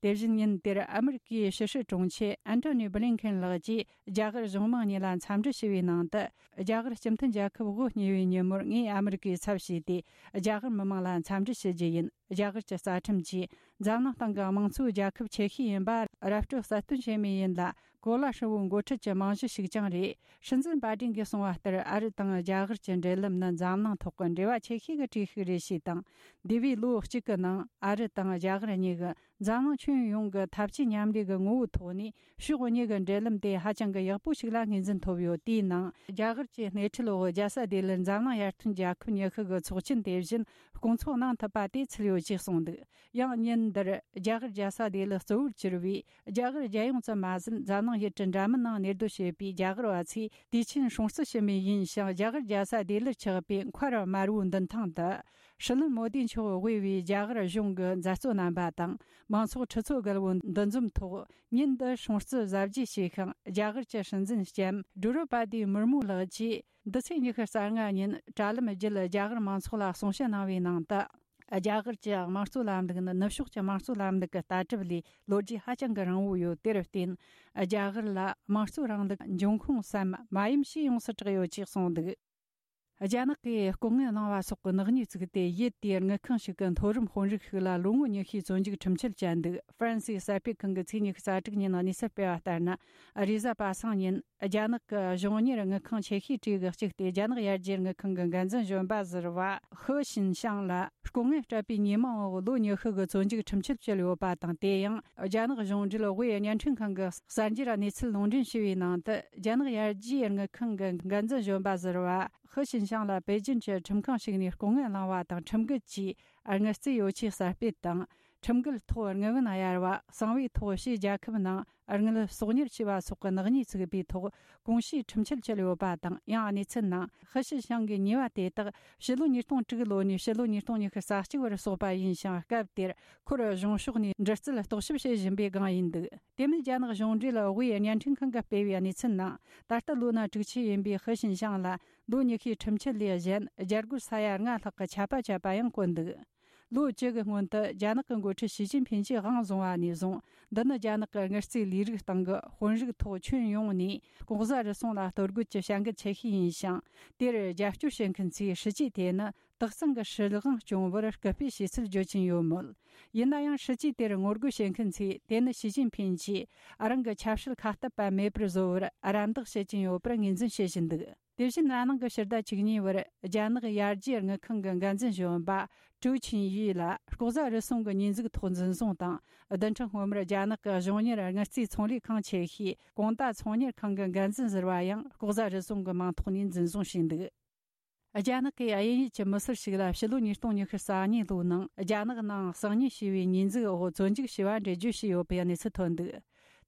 དེ་བཞིན་ཉིན་དེར་ཨ་མི་རི་ཀའི་ཕྱི་སྲིད་དྲུང་ཆེ་ཨན་ཐོ་ནི་བྷི་ལིན་ཁེན་ལགས་ཀྱིས་རྒྱ་གར་གཞུང་མང་གཉིས་ལ་འཚམས་འདྲི་ཞུ་བའི་ནང་དུ། རྒྱ་གར་སྤྱི་མཐུན་རྒྱལ་ཁབ་དབུ་བརྙེས་པའི་ཉིན་མོར་ངས་ཨ་མི་རི་ཀའི་ཚབ་བྱས་ཏེ་རྒྱ་གར་མི་མང་ལ་འཚམས་འདྲི་ཞུ་རྒྱུ་ཡིན། རྒྱ་གར་གྱི་རྩ་ཁྲིམས་ཀྱིས་འཛམ་གླིང་སྟེང་གི་དམངས་གཙོའི་རྒྱལ་ཁབ་ཆེ་ཤོས་ཡིན་པ་ར་སྤྲོད་གསལ་སྟོན་བྱེད་མུས་ཡིན་ལ། གོ་ལ་ཧྲིལ་བོའི་འགོ་ཁྲིད་ཀྱི་རྨང་གཞི་ཞིག་ཀྱང་རེད། སྲིད་འཛིན་པ་ཏྲིན་གྱིས་གསུངས་པ་ལྟར། ཨ་རི་དང་རྒྱ་གར་གྱི་འབྲེལ་ལམ་ནི་འཛམ་གླིང་ཐོག་གི་འབྲེལ་བ་ཆེ་ཤོས་ཀྱི་གྲས་ཤིག་རེད་ཞེས་དང་། འདས་པའི་ལོ་གཅིག་གི་ནང་ཨ་རི་དང་རྒྱ་གར་གཉིས་ཀྱིས་འཛམ་གླིང་ཁྱོན་ཡོངས་ཀྱི་འཐབ་ཇུས་མཉམ་ལས་ཀྱི་ངོ་བོའི་ཐོག་ནས་ཕྱོགས་གཉིས་ཀྱི་འབྲེལ་ལམ་དེ་ཧ་ཅང་གི་ཡག་པོ་ཞིག་ལ་ངོས་འཛིན་ཐོབ་ཡོད། དེའི་ནང་རྒྱ་གར་གྱི་སྣེ་ཁྲིད་འོག་རྒྱལ་ས་ལྡི་ལིར་འཛམ་གླིང་ཡར་ཐོན་རྒྱལ་ཁབ་ཉི་ཤུ་གི་ཚོགས་ཆེན། དེ་བཞིན་སྐོང་ཚོགས་གནང་ཐུབ་པ་དེ་ཚུད་ཡོད། ཅེས་གསུངས་འདུག། ཡང་ཉིན་འདིར་རྒྱ་གར་རྒྱལ་ས་ལྡི་ལི་གཙོ་བོར་གྱུར་བའི་རྒྱ་གར་རྒྱལ་ཡོངས་ཙམ་མ་ཟད། འཛམ་གླིང་ཡུལ་གྲུ་འདྲ་མིན་ནང་གནས་སྡོད་བྱེད་པའི་རྒྱ་གར་བ་ཚོས་དུས་ཆེན་སྲུང་བརྩི་ཞུ་མུས་ཡིན་ཞིང་། རྒྱ་གར་རྒྱལ་ས་ལྡི་ལིར་ཆགས་པའི་མཁར་དམར་བོའི་མདུན་ཐང་དུ། སྲིད་བློན་མོ་དི་མཆོག་དབུས་པའི་རྒྱ་གར་གཞུང་གི་མཛད་གཙོ་རྣམ་པ་དང་། མང་ཚོགས་ཁྲི་ཚོ་བརྒལ་བོ་འདུ་འཛོམས་ཐོག་ཉིན་འདི་སྲུང་བརྩི་གཟབ་རྒྱས་བྱས་ཤིང་། རྒྱ་གར་གྱི་སྲིད་འཛིན་ལྕམ་ཌོ་རོ་པ་ཏི་མུར་མུ་ལགས་ཀྱིས་འདི་ཚེས་ཉི་ཤུ་རྩ་ལྔ་ཉིན་དྲ་ལམ་བརྒྱུད་རྒྱ་གར་མང་ཚོགས་ལ་གསུང་བཤད་གནང་བའི་ནང་དུ། རྒྱ་གར་གྱི་དམངས་གཙོའི་ལམ་ལུགས་ནི་ནུབ་ཕྱོགས་ཀྱི་དམངས་གཙོའི་ལམ་ལུགས་ཀྱི་ལྟ་གྲུབ་ལས་ལོ་རྒྱུས་ཧ་ཅང་གི་རིང་བོ་ཡོད། དེར་བརྟེན། རྒྱ་གར་ལ་དམངས་གཙོའི་རིང་ལུགས་འབྱུང་ཁུངས་སམ་མ་ཡུམ་ཞེས་ཡོངས་སུ་གྲགས་ཡོད་ཅེས་གསུངས་འདུག། རྒྱ་ནག་གིས་ལྐོག་རྔན་བླངས་པ་སོགས་ཀྱི་ནག་ཉེས་བཙུགས་ཏེ། ཡུལ་དེའི་དངུལ་ཁང་ཞིག་གི་མཐོ་རིམ་དཔོན་རིགས་ཤིག་ལ་ལོ་ངོ་ཉི་ཤུའི་བཙོན་འཇུག་ཁྲིམས་ཆད་བཅད་འདུག། ཧྥ་རན་སིའི་གསར་སྤེལ་ཁང་གིས་ཚེས་ཉི་ཤུ་རྩ་དྲུག་ཉིན་གནས་ཚུལ་སྤེལ་བ་ལྟར་ན། རེས་གཟའ་པ་སངས་ཉིན་རྒྱ་ནག་གི་གཞུང་གཉེར་དངུལ་ཁང་ཆེ་ཤོས་གྲས་ཀྱི་གཅིག་སྟེ། རྒྱ་ནག་ཡར་རྒྱས་དངུལ་ཁང་གི་འགན་འཛིན་གཞོན་པ་ཟུར་པ་ཧི་ཞིན་ཤང་ལ་ལྐོག་རྔན་སྤྲད་པའི་ཉེས་མིང་འོག་ལོ་ཉི་ཤུ་གི་བཙོན་འཇུག་ཁྲིམས་ཆད་བཅད་ཡོད་པ་དང་། དེ་ཡང་རྒྱ་ནག་གཞུང་འབྲེལ་དབུས་བརྙན་འཕྲིན་ཁང་གི་གསར་འགྱུར་གནས་ཚུལ་ལུང་འདྲེན་ཞུས་པའི་ནང་དུ། རྒྱ་ནག་ཡར་རྒྱས་དངུལ་ཁང་གི་འགན་འཛིན་གཞོན་པ་ཟུར་པ་ཧི་ཞིན་ཤང་ལ་པེ་ཅིན་གྱི་ཁྲིམས་ཁང་ཞིག་ནས་ལྐོག་རྔན་བླངས་པ་དང་། ཁྲིམས་འགལ་གྱིས་དངུལ་རྩིས་ཡོ་ཆས་གསར་སྤེལ་དང་། ཁྲིམས་འགལ་ཐོག་དངུལ་བུན་གཡར་བ། གསང་བའི་ཐོག་ཕྱིའི་རྒྱལ་ཁབ་ནང་དངུལ་གསོག་ཉར་བྱས་པ་སོགས་ཀྱི་ནག་ཉེས་བཙུགས་པའི་ཐོག་གོང་ཞུས་ཁྲིམས་ཆད་བཅད་ཡོད་པ་དང་། ཡང་གནས་ཚུལ་ནང་ཧི་ཞི་ཞང་གི་ཉེས་པ་དེ་དག་ཕྱི་ལོ་ཉིས་སྟོང་དྲུག་ལོ་ནས་ཕྱི་ལོ་ཉིས་སྟོང་ཉི་ཤུ་རྩ་གཅིག་བར་སོགས་པ་ཡིན་ཞིང་། སྐབས་དེར་ཁོར་གཞུང་ཕྱོགས་ནས་འདྲི་རྩད་རྟོག་ཞིབ་བྱེད་བཞིན་པའི་སྒང་ཡིན་འདུག། དེ་མིན་རྒྱ་ནག་གཞུང་འབྲེལ་དབུས་བརྙན་འཕྲིན་ཁང་གིས་སྤེལ་བའི་གནས་ཚུལ་ནང་། ད་ལྟ་ལོ་ན་དྲུག་ཅུ་ཡིན་པའི་ཧི་ཞིན་ཞང་ལ་ལོ་ཉི་ཤུའི་ཁྲིམས་ཆད་ལས་གཞན་རྒྱ་སྒོར་ས་ཡ་ལྔ་ལྷག་གི་ཆད་པ་བཅད་པ་ཡང་བཀོད་འདུག། ལོ་བཅུ་གི་སྔོན་དུ་རྒྱ་ནག་གི་འགོ་ཁྲིད་ཞི་ཅིན་ཕིན་གྱིས་དབང་བཟུང་བ་ནས་བཟུང་། འདི་ནི་རྒྱ་ནག་གི་དངུལ་རྩིས་ལས་རིགས་སྟེང་གི་དཔོན་རིགས་ཐོག་ཁྱོན་ཡོངས་ནས་ལྐོག་ཟ་རུལ་སུངས་ལ་གཏོར་རྒོལ་གྱི་བྱ་འགུལ་ཆེ་ཤོས་ཡིན་ཞིང་། དེར་རྒྱབ་སྐྱོར་བྱེད་མཁན་ཚོས་སྲིད་ཇུས་དེ་ནི་དག་གཙང་གི་སྲིད་དབང་སྐྱོང་བར་སྐུལ་སྤེལ་བྱས་ཚུལ་བརྗོད་ཀྱིན་ཡོད་མོད། ཡིན་ན་ཡང་། སྲིད་ཇུས་དེར་ངོ་རྒོལ་བྱེད་མཁན་ཚོས་དེ་ནི་ཞི་ཅིན་ཕིན་གྱིས་རང་གི་ཆབ་སྲིད་ཁ་གཏད་པ་མེད་པར་བཟོ་བར་རམ་འདེགས་བྱེད་ཀྱིན་ཡོད་པར་ངོས་འཛིན་བྱེད་བཞིན་འདུག། དེ་བཞིན། ན་ནིང་གི་ཕྱི་ཟླ་བཅུ་གཉིས་པར་རྒྱ་ནག་ཡར་རྒྱས་དངུལ་ཁང་གི་འགན་འཛིན་གཞོན་པ་ཀྲུའུ་ཆིན་ཡུས་ལ་ལྐོག་ཟ་རུལ་སུངས་ཀྱི་ཉེས་འཛུགས་ཐོག་འཛིན་བཟུང་དང་། བདུན་ཕྲག་སྔོན་མར་རྒྱ་ནག་གི་གཞུང་གཉེར་དངུལ་རྩིས་ཚོང་ལས་ཁང་ཆེ་ཤོས་གོང་ཏ་ཚོང་གཉེར་ཁང་གི་འགན་འཛིན་ཟུར་པ་ཡང་ལྐོག་ཟ་རུལ་སུངས་ཀྱི་མིང་ཐོག་ནས་འཛིན་བཟུང་བྱས་འདུག། རྒྱ་ནག་གི་དབྱིན་ཡུལ་གྱི་མི་སེར་ཞིག་ལ་ཕྱི་ལོ་ཉིས་སྟོང་ཉི་ཤུ་རྩ་གཉིས་ལོའི་ནང་རྒྱ་ནག་ནང་གསང་ཉུལ་བྱས་པའི་ཉེས་འཛུགས་འོག་བཙོན་འཇུག་བྱས་པ་འགྲེལ་བརྗོད་བྱས་ཡོད་པའི་གནས་ཚུལ་ཐོན་འདུག།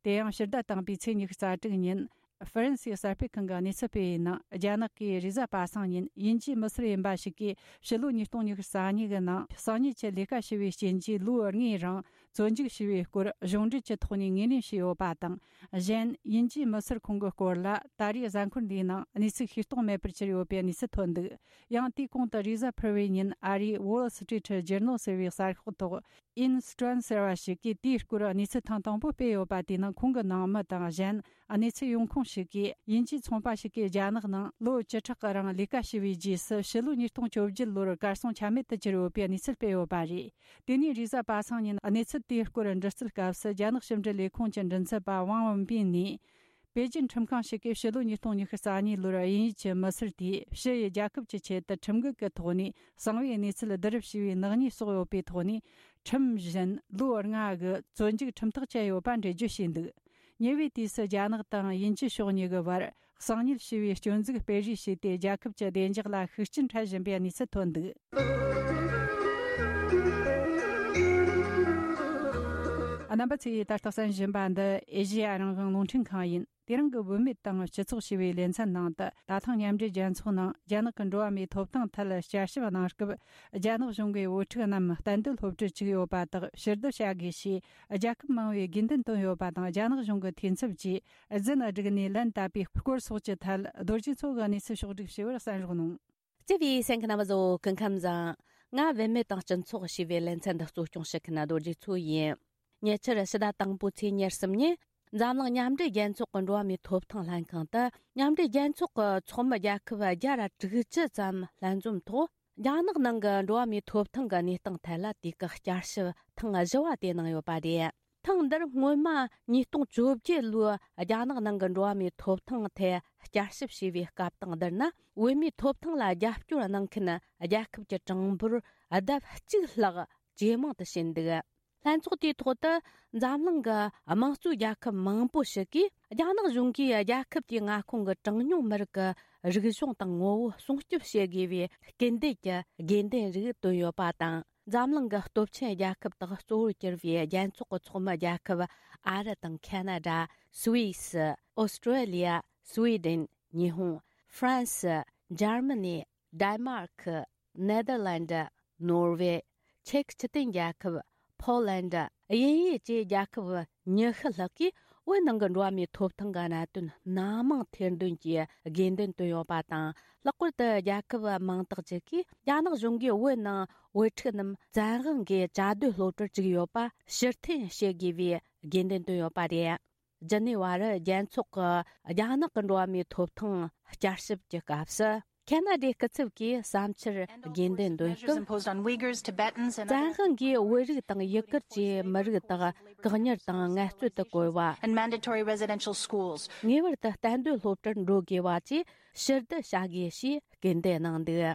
དེ་ཡང་ཕྱིར་བསྒྲགས་བཏང་པའི་ཚེས་ཉི་ཤུ་རྩ་དྲུག་ཉིན། ཧྥ་རན་སིའི་གསར་སྤེལ་ཁང་གིས་གནས་ཚུལ་སྤེལ་བའི་ནང་། རྒྱ་ནག་གིས་རེས་གཟའ་པ་སངས་ཉིན་དབྱིན་ཇིའི་མི་སེར་ཡིན་པ་ཞིག་གིས་ཕྱི་ལོ་ཉིས་སྟོང་ཉི་ཤུ་རྩ་གཉིས་ཀྱི་ནང་གསང་ཉུལ་གྱི་ལས་ཀ་བྱས་པའི་རྐྱེན་གྱིས་ལོ་ལྔའི་རིང་བཙོན་འཇུག་བྱས་པའི་སྐོར་གཞུང་འབྲེལ་གྱི་ཐོག་ནས་ངོས་ལེན་བྱས་ཡོད་པ་དང་། གཞན། དབྱིན་ཇིའི་མི་སེར་ཁོང་གི་སྐོར་ལ་ད་རེས་གཟའ་འཁོར་འདིའི་ནང་གནས་ཚུལ་ཤེས་རྟོགས་མེད་པར་གྱུར་ཡོད་པའི་གནས་ཚུལ་ཐོན་འདུག། ཡང་དེའི་གོང་དུ་རེས་གཟའ་ཕུར་བུའི་ཉིན་ཨ་རིའི་Wall Street Journal ཟེར་བའི་གསར་ཤོག་ཐོག་Ian Stone ཟེར་བ་ཞིག་གིས་དེའི་སྐོར་གནས་ཚུལ་ཐེངས་དང་པོ་སྤེལ་ཡོད་པ་དེ་ནི། ཁོང་གི་ནང་མི་དང་གཞན་གནས་ཚུལ་ཡོང་ཁུངས་ཤིག་གིས། དབྱིན་ཇིའི་ཚོང་པ་ཞིག་གིས་རྒྱ་ནག་ནང་ལོ་བཅུ་ཕྲག་གི་རིང་ལས་ཀ་བྱས་པའི་རྗེས་སུ། ཕྱི་ལོ་ཉིས་སྟོང་བཅོ་བརྒྱད་ལོར་གར་སོང་ཆ་མེད་དུ་གྱུར་ཡོད་པའི་གནས་ཚུལ་སྤེལ་ཡོད་པ་རེད། དེ་ནས་རེས་གཟའ་པ་སངས་ཉིན་གནས་ཚུལ་དེའི་སྐོར་འདྲི་རྩད་སྐབས་སུ། རྒྱ་ནག་ཕྱི་འབྲེལ་ལས་ཁུངས་ཀྱི་མགྲིན་ཚབ་པ་ཝང་ཝུན་པིན་ནས། པེ་ཅིན་ཁྲིམས་ཁང་ཞིག་གིས་ཕྱི་ལོ་ཉིས་སྟོང་ཉི་ཤུ་རྩ་གཉིས་ལོར་དབྱིན་ཡུལ་གྱི་མི་སེར་དེས་ཕྱི་ཡི་རྒྱལ་ཁབ་ཀྱི་ཆེད་དུ་ཁྲིམས་འགལ་གྱི་ཐོག་ནས་གསང་བའི་གནས་ཚུལ་བསྡུ་རུབ་བྱས་པའི་ནག་ཉེས་བསགས་ཡོད་པའི་ཐོག་ནས། ཁྲིམས་བཞིན་ལོ་ལྔ་གི་བཙོན་འཇུག་ཁྲིམས་ཐག་བཅད་ཡོད་པ་འགྲེལ་བརྗོད་བྱས་འདུག། ཉེ་བའི་དུས་སུ་རྒྱ་ནག་དང་དབྱིན་ཇི་ཕྱོགས་གཉིས་ཀྱི་བར་གསང་ཉུལ་བྱས་པའི་སྐྱོན་འཛུགས་སྤེལ་རེས་བྱས་ཏེ། རྒྱལ་ཁབ་ཀྱི་བདེ་འཇགས་ལ་ཤུགས་རྐྱེན་འཕྲད་བཞིན་པའི་གནས་ཚུལ་ཐོན་འདུག། རྣམ་པ་ཚོས་ད་ལྟ་གསན་བཞིན་པ་འདི་ཨེ་ཤེ་ཡ་རང་དབང་རླུང་འཕྲིན་ཁང་ཡིན། དེ་རིང་གི་བུད་མེད་དང་སྤྱི་ཚོགས་ཞེས་པའི་ལེ་ཚན་ནང་དུ། ད་ཐེངས་མཉམ་འབྲེལ་རྒྱལ་ཚོགས་ནང་རྒྱ་ནག་གི་འགྲོ་བ་མིའི་ཐོབ་ཐང་ཐད་བསྐྱར་ཞིབ་གནང་སྐབས། རྒྱ་ནག་གཞུང་གིས་བུ་ཕྲུག་རྣམས་གཏན་སྡོད་སློབ་གྲྭར་བཅུག་ཡོད་པ་དག་ཕྱིར་བསྡུ་བྱ་དགོས་ཞེས་རྒྱལ་ཁབ་མང་བོས་དགོས་འདུན་བཏོན་ཡོད་པ་དང་། རྒྱ་ནག་གཞུང་གི་འཐུས་ཚབ་ཀྱིས་རྫུན་བསྒྲིགས་ནས་ལན་བཏབ་པའི་སྐོར་སོགས་ཀྱི་ཐད། རྡོ་རྗེ་མཚོ་གིས་གནས་ཚུལ་ཕྱོགས་བསྒྲིགས་བྱས་པར་གསན་རོགས་གནང་། བརྩེ་བའི་གསན་མཁན་རྣམ་པ་ཚོ། སྐུ་ཁམས་བཟང་། ང་བུད་མེད་དང་སྤྱི་ཚོགས་ཞེས་པའི་ལེ་ཚན་འདི་གཙོ་སྐྱོང་བྱེད་མཁན་རྡོ་རྗེ་མཚོ་ཡིན། ཉེ་ཆར་ཕྱི་ཟླ་དང་པོའི་ཚེས་ཉེར་གསུམ་ཉིན། འཛམ་གླིང་མཉམ་འབྲེལ་རྒྱལ་ཚོགས་ཀྱི་འགྲོ་བ་མིའི་ཐོབ་ཐང་ལྷན་ཁང་དུ། མཉམ་འབྲེལ་རྒྱལ་ཚོགས་ཀྱི་ཚོགས་མི་རྒྱལ་ཁབ་བརྒྱ་དང་དྲུག་ཅུ་ཙམ་ལྷན་འཛོམས་ཐོག་རྒྱ་ནག་ནང་གི་འགྲོ་བ་མིའི་ཐོབ་ཐང་གི་གནས་སྟངས་ཐད་ལ་དུས་བཀག་བསྐྱར་ཞིབ་ཐེངས་བཞི་བ་དེ་གནང་ཡོད་པ་རེད། ཐེངས་འདིར་སྔོན་མ་ཉིས་སྟོང་བཅོ་བརྒྱད་ལོའི་རྒྱ་ནག་ནང་གི་འགྲོ་བ་མིའི་ཐོབ་ཐང་ཐད་བསྐྱར་ཞིབ་བྱས་པའི་སྐབས་དང་བསྡུར་ན། བོད་མིའི་ཐོབ་ཐང་ལ་རྒྱབ་སྐྱོར་གནང་མཁན་རྒྱལ་ཁབ་ཀྱི་གྲངས་འབོར་ལྡབ་གཅིག་ལྷག་ཇེ་མང་དུ་ཕྱིན་འདུག། ལྷན་ཚོགས་དེའི་ཐོག་ཏུ་འཛམ་གླིང་གི་དམངས་གཙོའི་རྒྱལ་ཁབ་མང་པོ་ཞིག་གིས། རྒྱ་ནག་གཞུང་གིས་རྒྱལ་ཁབ་དེའི་མངའ་ཁོངས་ཀྱི་གྲངས་ཉུང་མི་རིགས་ཀྱི་རིག་གཞུང་དང་ངོ་བོ་སྲུང་སྐྱོབ་བྱེད་དགོས་པའི་སྐུལ་འདེད་ཀྱི་དགོས་འདུན་རིགས་བཏོན་ཡོད་པ་དང་། འཛམ་གླིང་གི་སྟོབས་ཆེན་རྒྱལ་ཁབ་དག་གཙོ་བོར་གྱུར་བའི་རྒྱལ་ཚོགས་ཀྱི་ཚོགས་མི་རྒྱལ་ཁབ་ཨ་རི་དང་ཁ་ན་ཌ། སུད་སི། ཨོ་སི་ཀྲོ་ལི་ཡ། སུའེ་ཌེན། ཉི་ཧོང་། ཧྥ་རན་སི། འཇར་མ་ནི། ཌེན་མཱར་ཁི། ནེ་དར་ལན་ཌི། ནོར་ཝེ། ཅེཀ་སྤྱི་མཐུན་རྒྱལ་ཁབ། ཕོ་ལན་ཌི། དབྱིན་ཡུལ་བཅས་རྒྱལ་ཁབ་ཉི་ཤུ་ལྷག་གིས་བོད་ནང་གི་འགྲོ་བ་མིའི་ཐོབ་ཐང་གི་གནད་དོན་སྣ་མང་ཐེར་འདོན་གྱིས་དགོས་འདུན་བཏོན་ཡོད་པ་དང་། ལྷག་པར་དུ་རྒྱལ་ཁབ་མང་དག་ཅིག་གིས་རྒྱ་ནག་གཞུང་གིས་བོད་ནང་བོད་ཕྲུག་རྣམས་བཙན་དབང་གིས་བཅའ་སྡོད་སློབ་གྲྭར་བཅུག་ཡོད་པ་ཕྱིར་འཐེན་བྱེད་དགོས་པའི་དགོས་འདུན་བཏོན་ཡོད་པ་རེད། ཇི་ནི་ཝ་རི་རྒྱལ་ཚོགས་ཀྱི་རྒྱ་ནག་གི་འགྲོ་བ་མིའི་ཐོབ་ཐང་བསྐྱར་ཞིབ་ཀྱི་སྐབས་སུ། ཁ་ན་ཌའི་སྐུ་ཚབ་ཀྱིས་བསམ་འཆར་དགོས་འདུན་འདོན་སྐབས། བཙན་དབང་གིས་བོད་རིགས་དང་ཡུ་གུར་གྱི་མི་རིགས་དག་བཀག་ཉར་དང་ངལ་རྩོལ་དུ་བཀོལ་བ། And mandatory residential schools. ངེས་པར་དུ་གཏན་སྡོད་སློབ་གྲྭར་འགྲོ་དགོས་པ་བཅས་ཕྱིར་བསྡུ་བྱ་དགོས་ཞེས་སྐུལ་འདེད་གནང་འདུག།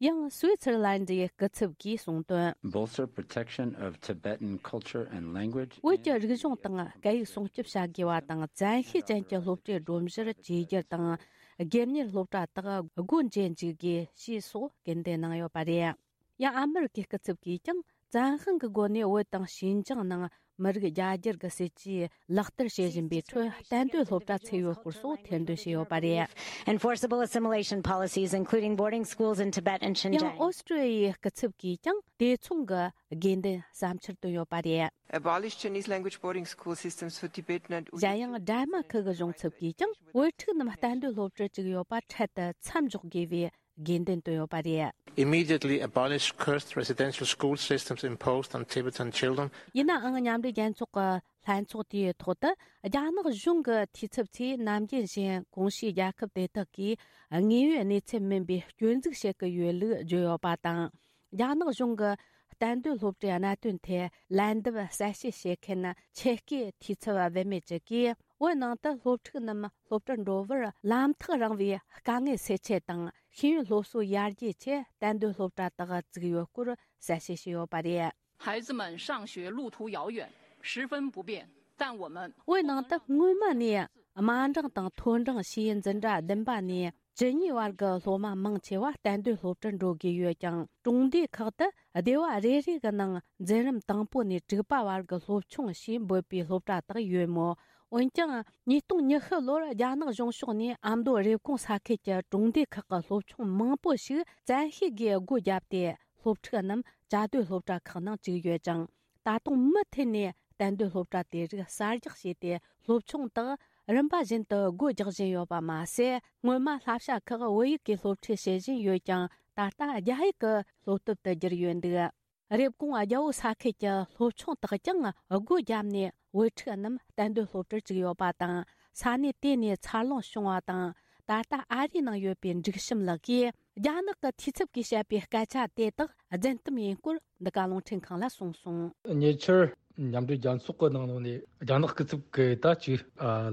ཡང་སུའི་ཙེར་ལན་ཌིའི་སྐུ་ཚབ་ཀྱིས་གསུངས་དོན། Bolster protection of Tibetan culture and language. བོད་ཀྱི་རིག་གཞུང་དང་སྐད་ཡིག་སྲུང་སྐྱོབ་བྱ་དགོས་པ་དང་། བཙན་ཤེད་ཅན་གྱི་སློབ་གྲྭའི་སྒྲོམ་གཞིར་བཅོས་བསྒྱུར་དང་། སྒེར་གཉེར་སློབ་གྲྭ་དག་སྒོ་འབྱེད་འཇུག་དགོས་ཞེས་སོགས་སྐུལ་འདེད་གནང་ཡོད་པ་རེད། ཡང་ཨ་མི་རི་ཀའི་སྐུ་ཚབ་ཀྱིས་ཀྱང་བཙན་དབང་གི་སྒོ་ནས་བོད་དང་ཤིན་ཅང་ནང་མི་རིགས་རྒྱ་སྒྱུར་གྱི་སྲིད་ཇུས་ལག་བསྟར་བྱེད་བཞིན་པའི་ཁྲོད་གཏན་སྡོད་སློབ་གྲྭ་ཚུགས་ཡོད་སྐོར་སོགས་ཐེར་འདོན་བྱས་ཡོད་པ་རེད། Enforceable assimilation policies, including boarding schools in Tibet and Xinjiang. ཡང་ཨོ་སི་ཀྲི་ཡའི་སྐུ་ཚབ་ཀྱིས་ཀྱང་དེ་མཚུངས་ཀྱི་དགོས་འདུན་བསམ་འཆར་བཏོན་ཡོད་པ་རེད། Abolish Chinese language boarding school systems for Tibetan and Uyghur. གཞན་ཡང་ཌེན་མཱར་ཁི་གི་གཞུང་ཚབ་ཀྱིས་ཀྱང་བོད་ཕྲུག་རྣམས་གཏན་སྡོད་སློབ་གྲྭར་བཅུག་ཡོད་པ་འཕྲལ་དུ་མཚམས་འཇོག་དགོས་པའི་དགོས་འདུན་བཏོན་ཡོད་པ་རེད། Immediately abolish cursed residential school systems imposed on Tibetan children. ཡིན་ནའང་མཉམ་འབྲེལ་རྒྱལ་ཚོགས་ཀྱི་ལྷན་ཚོགས་དེའི་ཐོག་ཏུ་རྒྱ་ནག་གཞུང་གི་འཐུས་ཚབ་ཚོས་ནམ་རྒྱུན་བཞིན་གོང་ཞུས་རྒྱལ་ཁབ་དེ་དག་གིས་དངོས་ཡོད་གནས་ཚུལ་མིན་པའི་སྐྱོན་འཛུགས་བྱེད་ཀྱི་ཡོད་ལུགས་བརྗོད་ཡོད་པ་དང་། རྒྱ་ནག་གཞུང་གི་གཏན་སྡོད་སློབ་གྲྭའི་གནད་དོན་ཐད་ལན་འདེབས་གསལ་བཤད་བྱེད་མཁན་ཆེད་བསྐོས་འཐུས་ཚབ་བུད་མེད་ཅིག་གིས། བོད་ནང་དུ་སློབ་ཕྲུག་རྣམས་སློབ་གྲྭར་འགྲོ་བར་ལམ་ཐག་རིང་བའི་དཀའ་ངལ་སེལ་ཆེད་དང་ཤེས་ཡོན་སློབ་གསོ་ཡར་རྒྱས་ཆེད་གཏན་སྡོད་སློབ་གྲྭ་དག་བཙུགས་ཡོད་སྐོར་གསལ་བཤད་བྱས་ཡོད་པ་རེད། 孩子们上学路途遥远，十分不便，但我们 བོད་ནང་དུ་སྔོན་མ་ནས་དམའ་འབྲིང་དང་མཐོ་འབྲིང་ཞེས་འཛིན་གྲྭ་བདུན་པ་ནས་བཅུ་གཉིས་བར་གྱི་སློབ་མ་མང་ཆེ་བ་གཏན་སྡོད་སློབ་གྲྭར་འགྲོ་དགོས་ཡོད་ཀྱང་། གྲོང་སྡེ་ཁག་ཏུ་སྡེ་བ་རེ་རེ་གི་ནང་འཛིན་རིམ་དང་པོ་ནས་དྲུག་པ་བར་གྱི་སློབ་ཆུང་ཞེས་འབོད་པའི་སློབ་གྲྭ་དག་ཡོད་མོད། འོན་ཀྱང་ཉིས་སྟོང་ཉི་ཤུ་ལོར་རྒྱ་ནག་གཞུང་ཕྱོགས་ནས་ཨ་མདོ་རེབ་གོང་ས་ཁུལ་གྱི་གྲོང་སྡེ་ཁག་གི་སློབ་ཆུང་མང་པོ་ཞིག་བཙན་ཤེད་ཀྱིས་སྒོ་བརྒྱབ་སྟེ། སློབ་ཕྲུག་རྣམས་བཅའ་སྡོད་སློབ་གྲྭ་ཁག་ནང་བཅུག་ཡོད་ཀྱང་། ད་དུང་མུ་མཐུད་ནས་གཏན་སྡོད་སློབ་གྲྭ་དེ་རིགས་གསར་རྒྱག་བྱས་ཏེ། སློབ་ཆུང་དག་རིམ་པ་བཞིན་དུ་སྒོ་རྒྱག་བཞིན་ཡོད་པ་མ་ཟད། སྔོན་མ་བསླབ་བྱ་ཁག་བོད་ཡིག་གི་སློབ་ཁྲིད་བྱེད་བཞིན་ཡོད་ཀྱང་། ད་ལྟ་རྒྱ་ཡིག་གི་སློབ་དེབ་ཏུ་བསྒྱུར་ཡོད་འདུག། རེབ་གོང་རྒྱལ་པོ་ས་ཁུལ་གྱི་སློབ་ཆུང་དག་ཀྱང་སྒོ་བརྒྱབ་ནས་བོད་ཕྲུག་རྣམས་གཏན་སྡོད་སློབ་གྲྭར་བཅུག་ཡོད་པ་དང་། ས་གནས་དེ་ནས་འཚར་ལོངས་བྱུང་བ་དང་། ད་ལྟ་ཨ་རིའི་ནང་ཡོད་པའི་འབྲུག་བྱམས་ལགས་ཀྱིས། རྒྱ་ནག་གི་འཐུས་ཚབ་ཀྱིས་བཤད་པའི་སྐད་ཆ་དེ་དག་རྫུན་གཏམ་ཡིན་སྐོར་འདི་ག་རླུང་འཕྲིན་ཁང་ལ་གསུངས་སོང་། ཉེ་ཆར་མཉམ་འབྲེལ་རྒྱལ་ཚོགས་ཀྱི་ནང་ལོགས་ནས་རྒྱ་ནག་སྐུ་ཚབ་ཀྱིས་ད་ཅིག་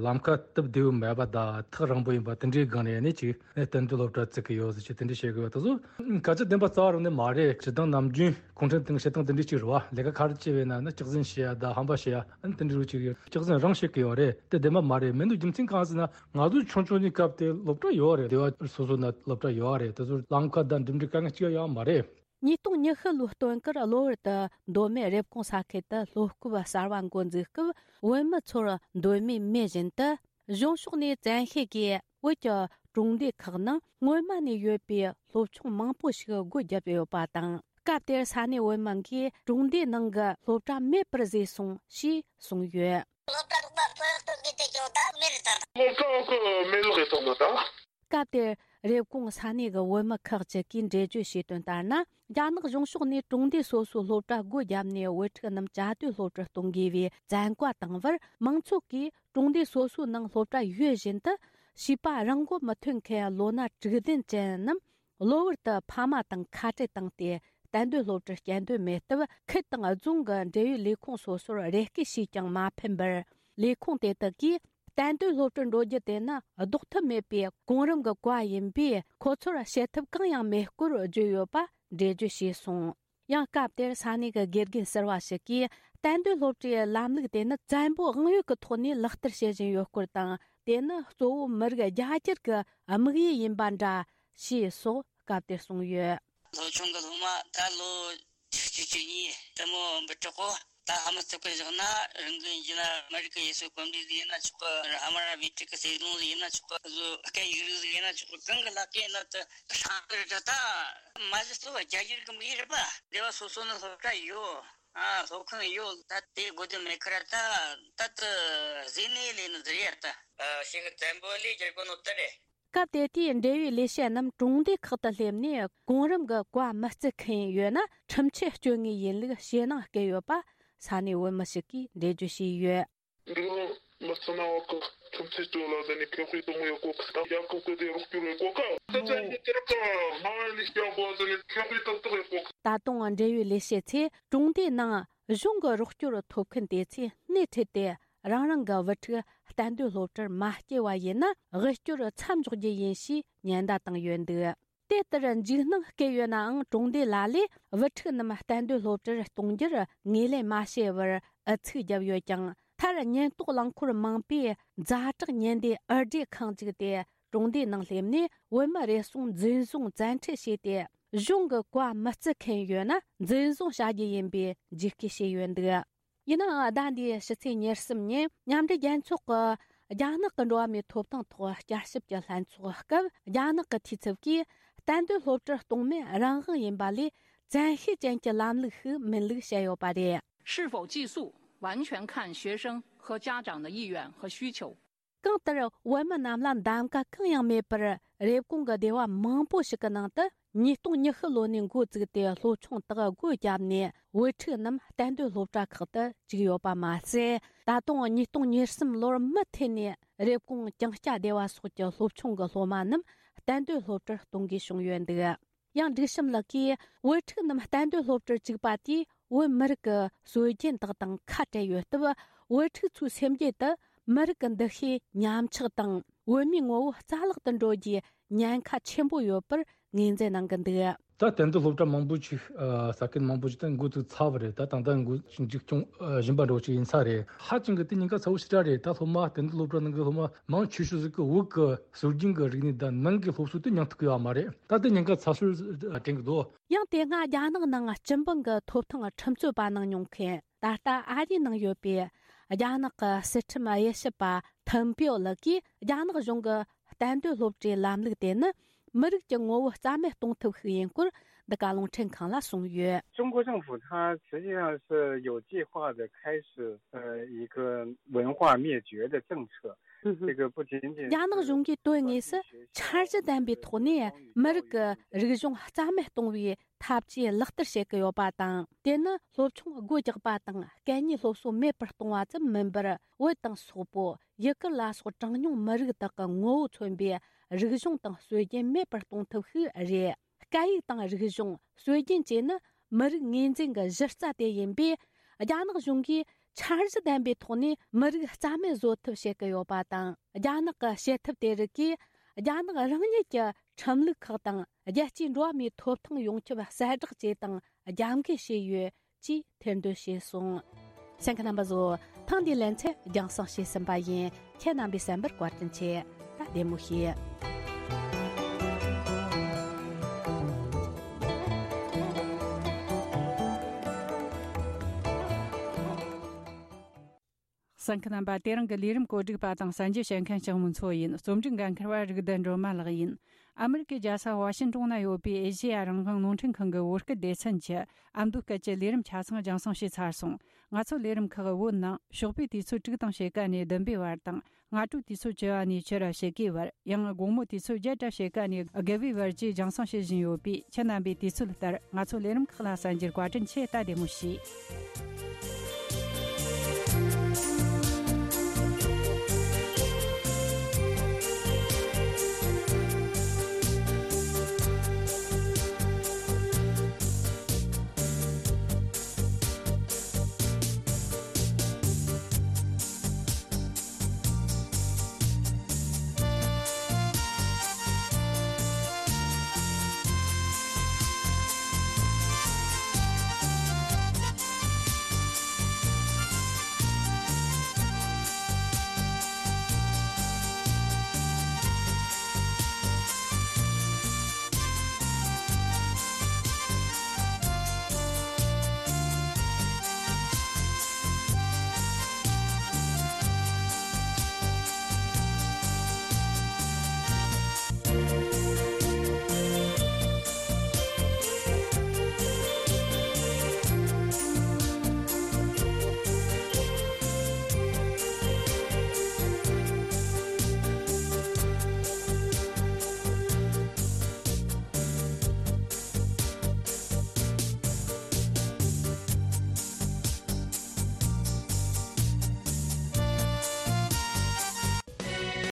ལམ་ཁ་སྟབས་བདེ་བོ་མེད་པ་དང་ཐག་རིང་པོ་ཡིན་པ་དེ་འདྲའི་སྒང་ནས་ནི་ཅིག་གཏན་སྡོད་སློབ་གྲྭ་བཙུགས་ཀྱི་ཡོད་ཟེར་ཅིག་དེ་འདྲ་བཤད་གི་ཡོད། དེ་ཚོ་སྐད་ཆ་བདེན་པ་རྩ་བ་རང་ནས་མ་རེད། སྤྱིར་བཏང་ནམ་རྒྱུན་གུང་ཁྲན་ཏང་བྱེད་སྟངས་དེ་འདྲ་ཅིག་རེད་བ། ལས་ཀ་ག་རེ་བྱས་པས་ན་ནི་སྐྱག་རྫུན་བཤད་ཡ་དང་ཧམ་པ་བཤད་ཡ་ཨ་ནི་དེ་འདྲ་རུ་ཅིག་ཡོད། སྐྱག་རྫུན་རང་བཤད་གི་ཡོད་རེད། དེ་བདེན་པ་མ་རེད། མི་འདུག་རྒྱུ་མཚན་གང་ཟེར་ན། ང་ཚོ་ཆུང་ཆུང་ནས་སྐབས་དེ་སློབ་གྲྭ་ཡོད་རེད། སྡེ་བ་སོ་སོ་ན་སློབ་གྲྭ་ཡོད་རེད། དེ་ཚོར་ལམ་ཁ་དང་འགྲིམ་འགྲུལ་དཀའ་ངལ་གཅིག་ཡོད་མ་རེད། ཉིས་སྟོང་ཉི་ཤུ་ལོའི་སྟོན་ཁར་གློ་བུར་དུ་མདོ་སྨད་རེབ་གོང་ས་ཁུལ་དུ་སློབ་སྐབས་གསར་བ་འགོ་འཛུགས་སྐབས། བོད་མི་ཚོར་མདོ་སྨད་མེད་བཞིན་དུ་གཞུང་ཕྱོགས་ནས་བཙན་ཤེད་ཀྱིས་བོད་ཀྱི་གྲོང་སྡེ་ཁག་ནང་སྔོན་མ་ནས་ཡོད་པའི་སློབ་ཆུང་མང་པོ་ཞིག་སྒོ་བརྒྱབ་ཡོད་པ་དང་། སྐབས་དེར་ས་གནས་བོད་མི་འགས་གྲོང་སྡེའི་ནང་གི་སློབ་གྲྭ་མེད་པར་བཟོས་སོང་ཞེས་གསུངས་ཡོད། སློབ་གྲྭ་རོགས་པ་ཚོ་སྟོན་གྱི་དེ་ཀྱང་ད་མེད་རེད་ད། སློབ་གྲྭ་གི་མེད་ལོག་གི་སོང་ནོ་ད། སྐབས་དེར་རེབ་གོང་ས་གནས་ཀྱི་བོད་མི་ཁག་ཅིག་གིས་འགྲེལ་བརྗོད་བྱས་དོན་ལྟར་ན། རྒྱ་ནག་གཞུང་ཕྱོགས་ནས་གྲོང་སྡེ་སོ་སོའི་སློབ་གྲྭ་སྒོ་བརྒྱབ་ནས་བོད་ཕྲུག་རྣམས་བཅའ་སྡོད་སློབ་གྲྭར་གཏོང་དགོས་པའི་བཙན་བཀའ་བཏང་བར། མང་ཚོགས་ཀྱིས་གྲོང་སྡེ་སོ་སོའི་ནང་སློབ་གྲྭ་ཡོད་བཞིན་དུ། བྱིས་པ་རང་མགོ་མི་ཐོན་མཁན་ལོ་ན་དྲུག་ལྡན་ཅན་རྣམས་གློ་བུར་དུ་ཕ་མ་དང་ཁ་བྲལ་བཏང་སྟེ། གཏན་སྡོད་སློབ་གྲྭར་སྐྱེལ་འདོད་མེད་སྟབས། ཁུལ་དང་རྫོང་གི་འབྲེལ་ཡོད་ལས་ཁུངས་སོ་སོར་རེ་སྐུལ་བྱས་ཀྱང་མ་ཕན་པར། ལས་ཁུངས་དེ་དག་གིས། གཏན་སྡོད་སློབ་གྲྭར་འགྲོ་རྒྱུ་དེ་ནི་ལྡོག་ཐབས་མེད་པའི་གོང་རིམ་གྱི་བཀའ་ཡིན་པས། ཁོ་ཚོར་བྱེད་ཐབས་གང་ཡང་མེད་སྐོར་བརྗོད་ཡོད་པ་འགྲེལ་བརྗོད་བྱས་སོང་། ཡང་སྐབས་དེར་ས་གནས་ཀྱི་དགེ་རྒན་ཟུར་པ་ཞིག་གིས། གཏན་སྡོད་སློབ་གྲྭའི་ལམ་ལུགས་དེ་ནི་བཙན་པོའི་དབང་ཡོད་ཀྱི་ཐོག་ནས་ལག་བསྟར་བྱེད་བཞིན་ཡོད་སྐོར་དང་། དེ་ནི་གཙོ་བོ་མི་རིགས་རྒྱ་སྒྱུར་གྱི་དམིགས་ཡུལ་ཡིན་པ་འདྲ་ཞེས་སོགས་སྐབས་དེར་གསུངས་ཡོད། སློབ་ཆུང་གི་སློབ་མ་ད་ལོ་ ཆིག་སྟོང་དགུ་བརྒྱ་བརྒྱད་ཅུ་གྱ་གཉིས་དེ་མོ་འབུད་གྲོགས་གོ། ད་ཧ་མ་ཐུབ་ཀི་བཞག་ན་རང་གི་ཡིན་ན་མི་རིགས་ཀྱི་ཡུལ་སྲོལ་གོམས་འདྲིས་ཟིག་ཡིན་ན་ཆོག་གི། ཧ་མ་ར་བི་ཀྲིག་གི་སྲིད་དོན་ཟིག་ཡིན་ན་ཆོག་གི། བཟོ་སྐད་ཡིག་རིགས་ཟིག་ཡིན་ན་ཆོག་གི། གང་གི་ལག་གི་ཡིན་ན་དུ་ཧྲང་གི་རེད། ད་མ་གཞི་སོ་རྒྱ་ཡུལ་གི་མི་རེད་པ། སྡེ་བ་སོ་སོ་ནི་སློབ་གྲྭ་ཡོད། ཨ་སློབ་ཁང་ཡོད། ད་དེ་དགོས་དོན་མེད་ཁར་ད་ད་དུ་ཟིན་ནས་ལས་ནི་ཟེར་ཡ་ད། ཨ་ཞིག་གི་བཙན་པོ་ལས་རྒྱལ་པོ་ནོ་ད་རེད། སྐབས་དེ་དུས་འབྲེལ་ཡོད་ལས་བྱེད་རྣམས་གྲོང་སྡེ་ཁག་ཏུ་སླེབས་ནས་གོང་རིམ་གྱི་བཀའ་མི་བརྩི་མཁན་ཡོད་ན་ཁྲིམས་ཆད་གཅོད་ངེས་ཡིན་ལུགས་ཞེད་སྣང་སྐྱེ་ཡོད་པ་ས་གནས་བོད་མི་ཞིག་གིས་འགྲེལ་བརྗོད་བྱས་ཡོད། འདི་རང་མི་ཚང་ན་བ་གི་ཁྲིམས་ཆད་གཅོད་ལ་ཟེར་ནས་ཁེ་ཧུའི་གཏོང་ཡོད་གོ་གི། ད་རྒྱལ་ཁབ་ཀྱི་དེ་རོགས་སྐྱོར་ཡོད་གོ་གི། ད་ཚན་གྱི་དེར་ཀ་སྨྲ་བ་ལས་སྐྱོ་གོ་ཟེར་ནས་ཁེ་ཧུའི་ཏག་ཏག་ཡོད་གོ་གི། ད་དུང་འབྲེལ་ཡོད་ལས་བྱེད་ཚོས་གྲོང་སྡེའི་ནང་གཞུང་གི་རོགས་སྐྱོར་ཐོབ་མཁན་དེ་ཚོས་སྣེ་ཁྲིད་དེ་རང་རང་གི་བུ་ཕྲུག་གཏན་སྡོད་སློབ་གྲྭར་མ་སྐྱེལ་བ་ཡིན་ན་དབུལ་སྐྱོར་མཚམས་འཇོག་རྒྱུ་ཡིན་ཞེས་ཉེན་བརྡ་བཏང་ཡོད་འདུག། དེ་ལྟར་འཇིགས་སྣང་སྐྱེ་ཡོད་ནའང་གྲོང་སྡེ་ལ་ལས་བུ་ཕྲུག་རྣམས་གཏན་སྡོད་སློབ་གྲྭར་གཏོང་རྒྱུར་ངོས་ལེན་མ་བྱས་པར་ཨུ་ཚུགས་བརྒྱབ་ཡོད་ཀྱང་། མཐར་ཉེན་རྟོག་རླངས་འཁོར་མང་པོས་ཛ་དྲག་ཉེན་བསྡུས་འུར་སྒྲིག་ཁང་བཙུགས་ཏེ་གྲོང་སྡེའི་ནང་སླེབས་ནས་བོད་མི་རེ་ཟུང་འཛིན་བཟུང་བཙན་ཁྲིད་བྱས་ཏེ་གཞུང་གི་བཀའ་མི་བརྩི་མཁན་ཡོད་ན་འཛིན་བཟུང་བྱ་རྒྱུ་ཡིན་པའི་འཇིགས་སྐུལ་བྱས་ཡོད་འདུག། ཡིན་ནའང་ཟླ་འདིའི་ཕྱི་ཚེས་ཉེར་གསུམ་ཉིན་མཉམ་འབྲེལ་རྒྱལ་ཚོགས་ཀྱི་རྒྱ་ནག་གི་འགྲོ་བ་མིའི་ཐོབ་ཐང་ཐོག་བསྐྱར་ཞིབ་ཀྱི་ལྷན་ཚོགས་སྐབས་རྒྱ་ནག་གི་འཐུས་ཚབ་ཀྱིས་གཏན་སྡོད་སློབ་གྲྭར་གཏོང་མིན་རང་དབང་ཡིན་པ་ལས་བཙན་ཤེད་ཅན་གྱི་ལམ་ལུགས་ཤིག་མིན་ལུགས་བཤད་ཡོད་པ་རེད། 是否寄宿，完全看学生和家长的意愿和需求。 གང་ལྟར་བོད་མི་རྣམས་ལ་གདམ་ག་གང་ཡང་མེད་པར་རེབ་གོང་གི་སྡེ་བ་མང་པོ་ཞིག་གི་ནང་དུ་ཉིས་སྟོང་ཉི་ཤུ་ལོ་ནས་འགོ་བཙུགས་ཏེ་སློབ་ཆུང་དག་སྒོ་བརྒྱབ་ནས་བུ་ཕྲུག་རྣམས་གཏན་སྡོད་སློབ་གྲྭ་ཁག་ཏུ་བཅུག་ཡོད་པ་མ་ཟད། ད་དུང་ཉིས་སྟོང་ཉེར་གསུམ་ལོར་མུ་མཐུད་ནས་རེབ་གོང་ཀྱང་སྐྱ་སྡེ་བ་སོགས་ཀྱི་སློབ་ཆུང་གི་སློབ་མ་རྣམས་གཏན་སྡོད་སློབ་གྲྭར་གཏོང་དགོས་བྱུང་ཡོད་འདུག། ཡང་སྒྲིག་གཤོམ་ལགས་ཀྱིས་བུ་ཕྲུག་རྣམས་གཏན་སྡོད་སློབ་གྲྭར་བཅུག་པ་དེས་བོད་མི་རིགས་ཀྱི་སྲོལ་རྒྱུན་དག་དང་ཁ་བྲལ་ཡོད་སྟབས། བུ་ཕྲུག་ཚོའི་སེམས་རྒྱུད་དུ་མི་རིགས་ཀྱི་འདུ་ཤེས་ཉམས་ཆག་དང་བོད་མིའི་ངོ་བོ་རྩ་བརླག་ཏུ་འགྲོ་རྒྱུའི་ཉེན་ཁ་ཆེན་པོ་ཡོད་པར་ངོས་འཛིན་གནང་གི་འདུག། ད་གཏན་སྡོད་སློབ་གྲྭ་མང་པོ་ཅིག་ས་ཁུལ་མང་པོ་ཅིག་ད་འགོ་ཚུགས་ཚར་བ་རེད། ད་ད་ལྟ་འགོ་འཛུགས་སྐྱོང་བཞིན་པ་འདྲ་བོ་ཅིག་ཡིན་ས་རེད། ཧ་ཅང་གི་དེ་ཉེན་ཁ་ཚ་བོ་ཞེ་དྲག་རེད། ད་སློབ་མ་གཏན་སྡོད་སློབ་གྲྭ་ནང་གི་སློབ་མ་མང་ཆེ་ཤོས་ཟིག་གི་བོད་ཀྱི་སྲོལ་རྒྱུན་གྱི་རིག་གནས་དང་ནང་གི་སློབ་གསོ་དེ་མྱོང་ཐུབ་ཀྱི་ཡོད་མ་རེད། ད་ལྟ་ཉེན་ཁ་ཚ་ཤོས་དྲན་གྱི་འདུག། ཡང་དེ་སྔ་རྒྱ་ནག་ནང་སྤྱི་འབངས་ཀྱི་ཐོབ་ཐང་ཁྲིམས་རྩོད་པ་གནང་མྱོང་མཁན་ད་ལྟ་ཨ་རིའི་ནང་ཡོད་པའི་རྒྱ་ནག་གི་སྲིད་ཁྲིམས་དབྱེ་ཞིབ་པ་ཐིམ་པིའོ་ལགས་ཀྱིས་རྒྱ་ནག་གཞུང་གི་གཏན་སྡོད་སློབ་གྲྭའི་ལམ་ལུགས་དེ་ནི་མི་རིགས་ཀྱི་ངོ་བོ་རྩ་མེད་གཏོང་ཐབས་ཤིག་ཡིན་སྐོར་འདི་ག་རླུང་འཕྲིན་ཁང་ལ་གསུངས་ཡོད། 中国政府它实际上是有计划的开始，呃，一个文化灭绝的政策。这个不仅仅是 རྒྱ་ནག་གཞུང་གིས་དོན་དངོས་སུ་འཆར་གཞི་ལྡན་པའི་ཐོག་ནས་མི་རིགས་ཀྱི་རིག་གཞུང་རྩ་མེད་གཏོང་བའི་ཐབས་ཇུས་ལག་བསྟར་བྱེད་ཀྱི་ཡོད་པ་དང་། དེ་ནི་སློབ་ཆུང་སྒོ་རྒྱག་པ་དང་སྐད་གཉིས་སློབ་གསོ་མེད་པར་གཏོང་བ་ཙམ་མིན་པར། བོད་དང་སོག་པོ། ཡུ་གུར་ལ་སོགས་གྲངས་ཉུང་མི་རིགས་དག་གི་ངོ་བོ་མཚོན་པའི་རིག་གཞུང་དང་སྲོལ་རྒྱུན་མེད་པར་གཏོང་ཐབས་ཤིག་རེད། སྐད་ཡིག་དང་རིག་གཞུང་། སྲོལ་རྒྱུན་བཅས་ནི་མི་རིགས་ངོས་འཛིན་གྱི་གཞི་རྩ་དེ་ཡིན་པས། རྒྱ་ནག་གཞུང་གིས་འཆར་གཞི་ལྡན་པའི་ཐོག་ནས་མི་རིགས་རྩ་མེད་བཟོ་ཐབས་བྱེད་ཀྱི་ཡོད་པ་དང་། རྒྱ་ནག་གི་བྱེད་ཐབས་དེ་རིགས་ཀྱིས་རྒྱ་ནག་རང་ཉིད་ཀྱི་ཁྲིམས་ལུགས་ཁག་དང་རྒྱལ་སྤྱིའི་འགྲོ་བ་མིའི་ཐོབ་ཐང་ཡོངས་ཁྱབ་གསལ་བསྒྲགས་བཅས་དང་རྒྱབ་འགལ་བྱས་ཡོད་ཅེས་ཐེར་འདོན་བྱས་སོང་། གསན་མཁན་རྣམ་པ་ཚོ། ཐེངས་འདིའི་ལེ་ཚན་རྒྱང་སྲིང་བྱས་ཟིན་པ་ཡིན། ཁྱེད་རྣམ་པས་གསན་པར་བཀའ་དྲིན་ཆེ། ད་བདེ་མོ་བྱོས། གསན་མཁན་རྣམ་པ། དེ་རིང་གི་ལས་རིམ་བཀོད་སྒྲིག་པ་དང་གསན་རྒྱུ་བྱེད་མཁན་ལྕགས་མོ་མཚོ་ཡིན། རྩོམ་སྒྲིག་འགན་འཁུར་བ་རིག་ལྡན་སྒྲོལ་མ་ལགས་ཡིན། ཨ་མི་རི་ཀའི་རྒྱལ་ས་ཝ་ཤིན་ཏོན་ན་ཡོད་པའི་ཨེ་ཤེ་ཡ་རང་དབང་རླུང་འཕྲིན་ཁང་གི་བོད་སྐད་སྡེ་ཚན་གྱི་ཨ་མདོ་སྐད་ཀྱི་ལས་རིམ་ཆ་ཚང་རྒྱང་སྲིང་བྱས་ཚར་སོང་། ང་ཚོ་ལས་རིམ་ཁག་བོད་ནང་ཞོགས་པའི་དུས་ཚོད་དྲུག་དང་ཕྱེད་ཀ་ནས་བདུན་པའི་བར་དང་། སྔ་དྲོའི་དུས་ཚོད་བཅུ་པ་ནས་ཕྱི་རུ་ཕྱེད་ཀའི་བར། ཡང་དགོང་མོའི་དུས་ཚོད་བརྒྱད་དང་ཕྱེད་ཀ་ནས་དགུ་པའི་བར་བཅས་རྒྱང་སྲིང་བྱེད་བཞིན་ཡོད་པས། ཁྱེད་རྣམ་པས་དུས་ཚོད་ལྟར་ང་ཚོ་ལས་རིམ་ཁག་ལ་གསན་རྒྱུར་བཀའ་དྲིན་ཆེ། ད་བདེ་མོ་བྱོས།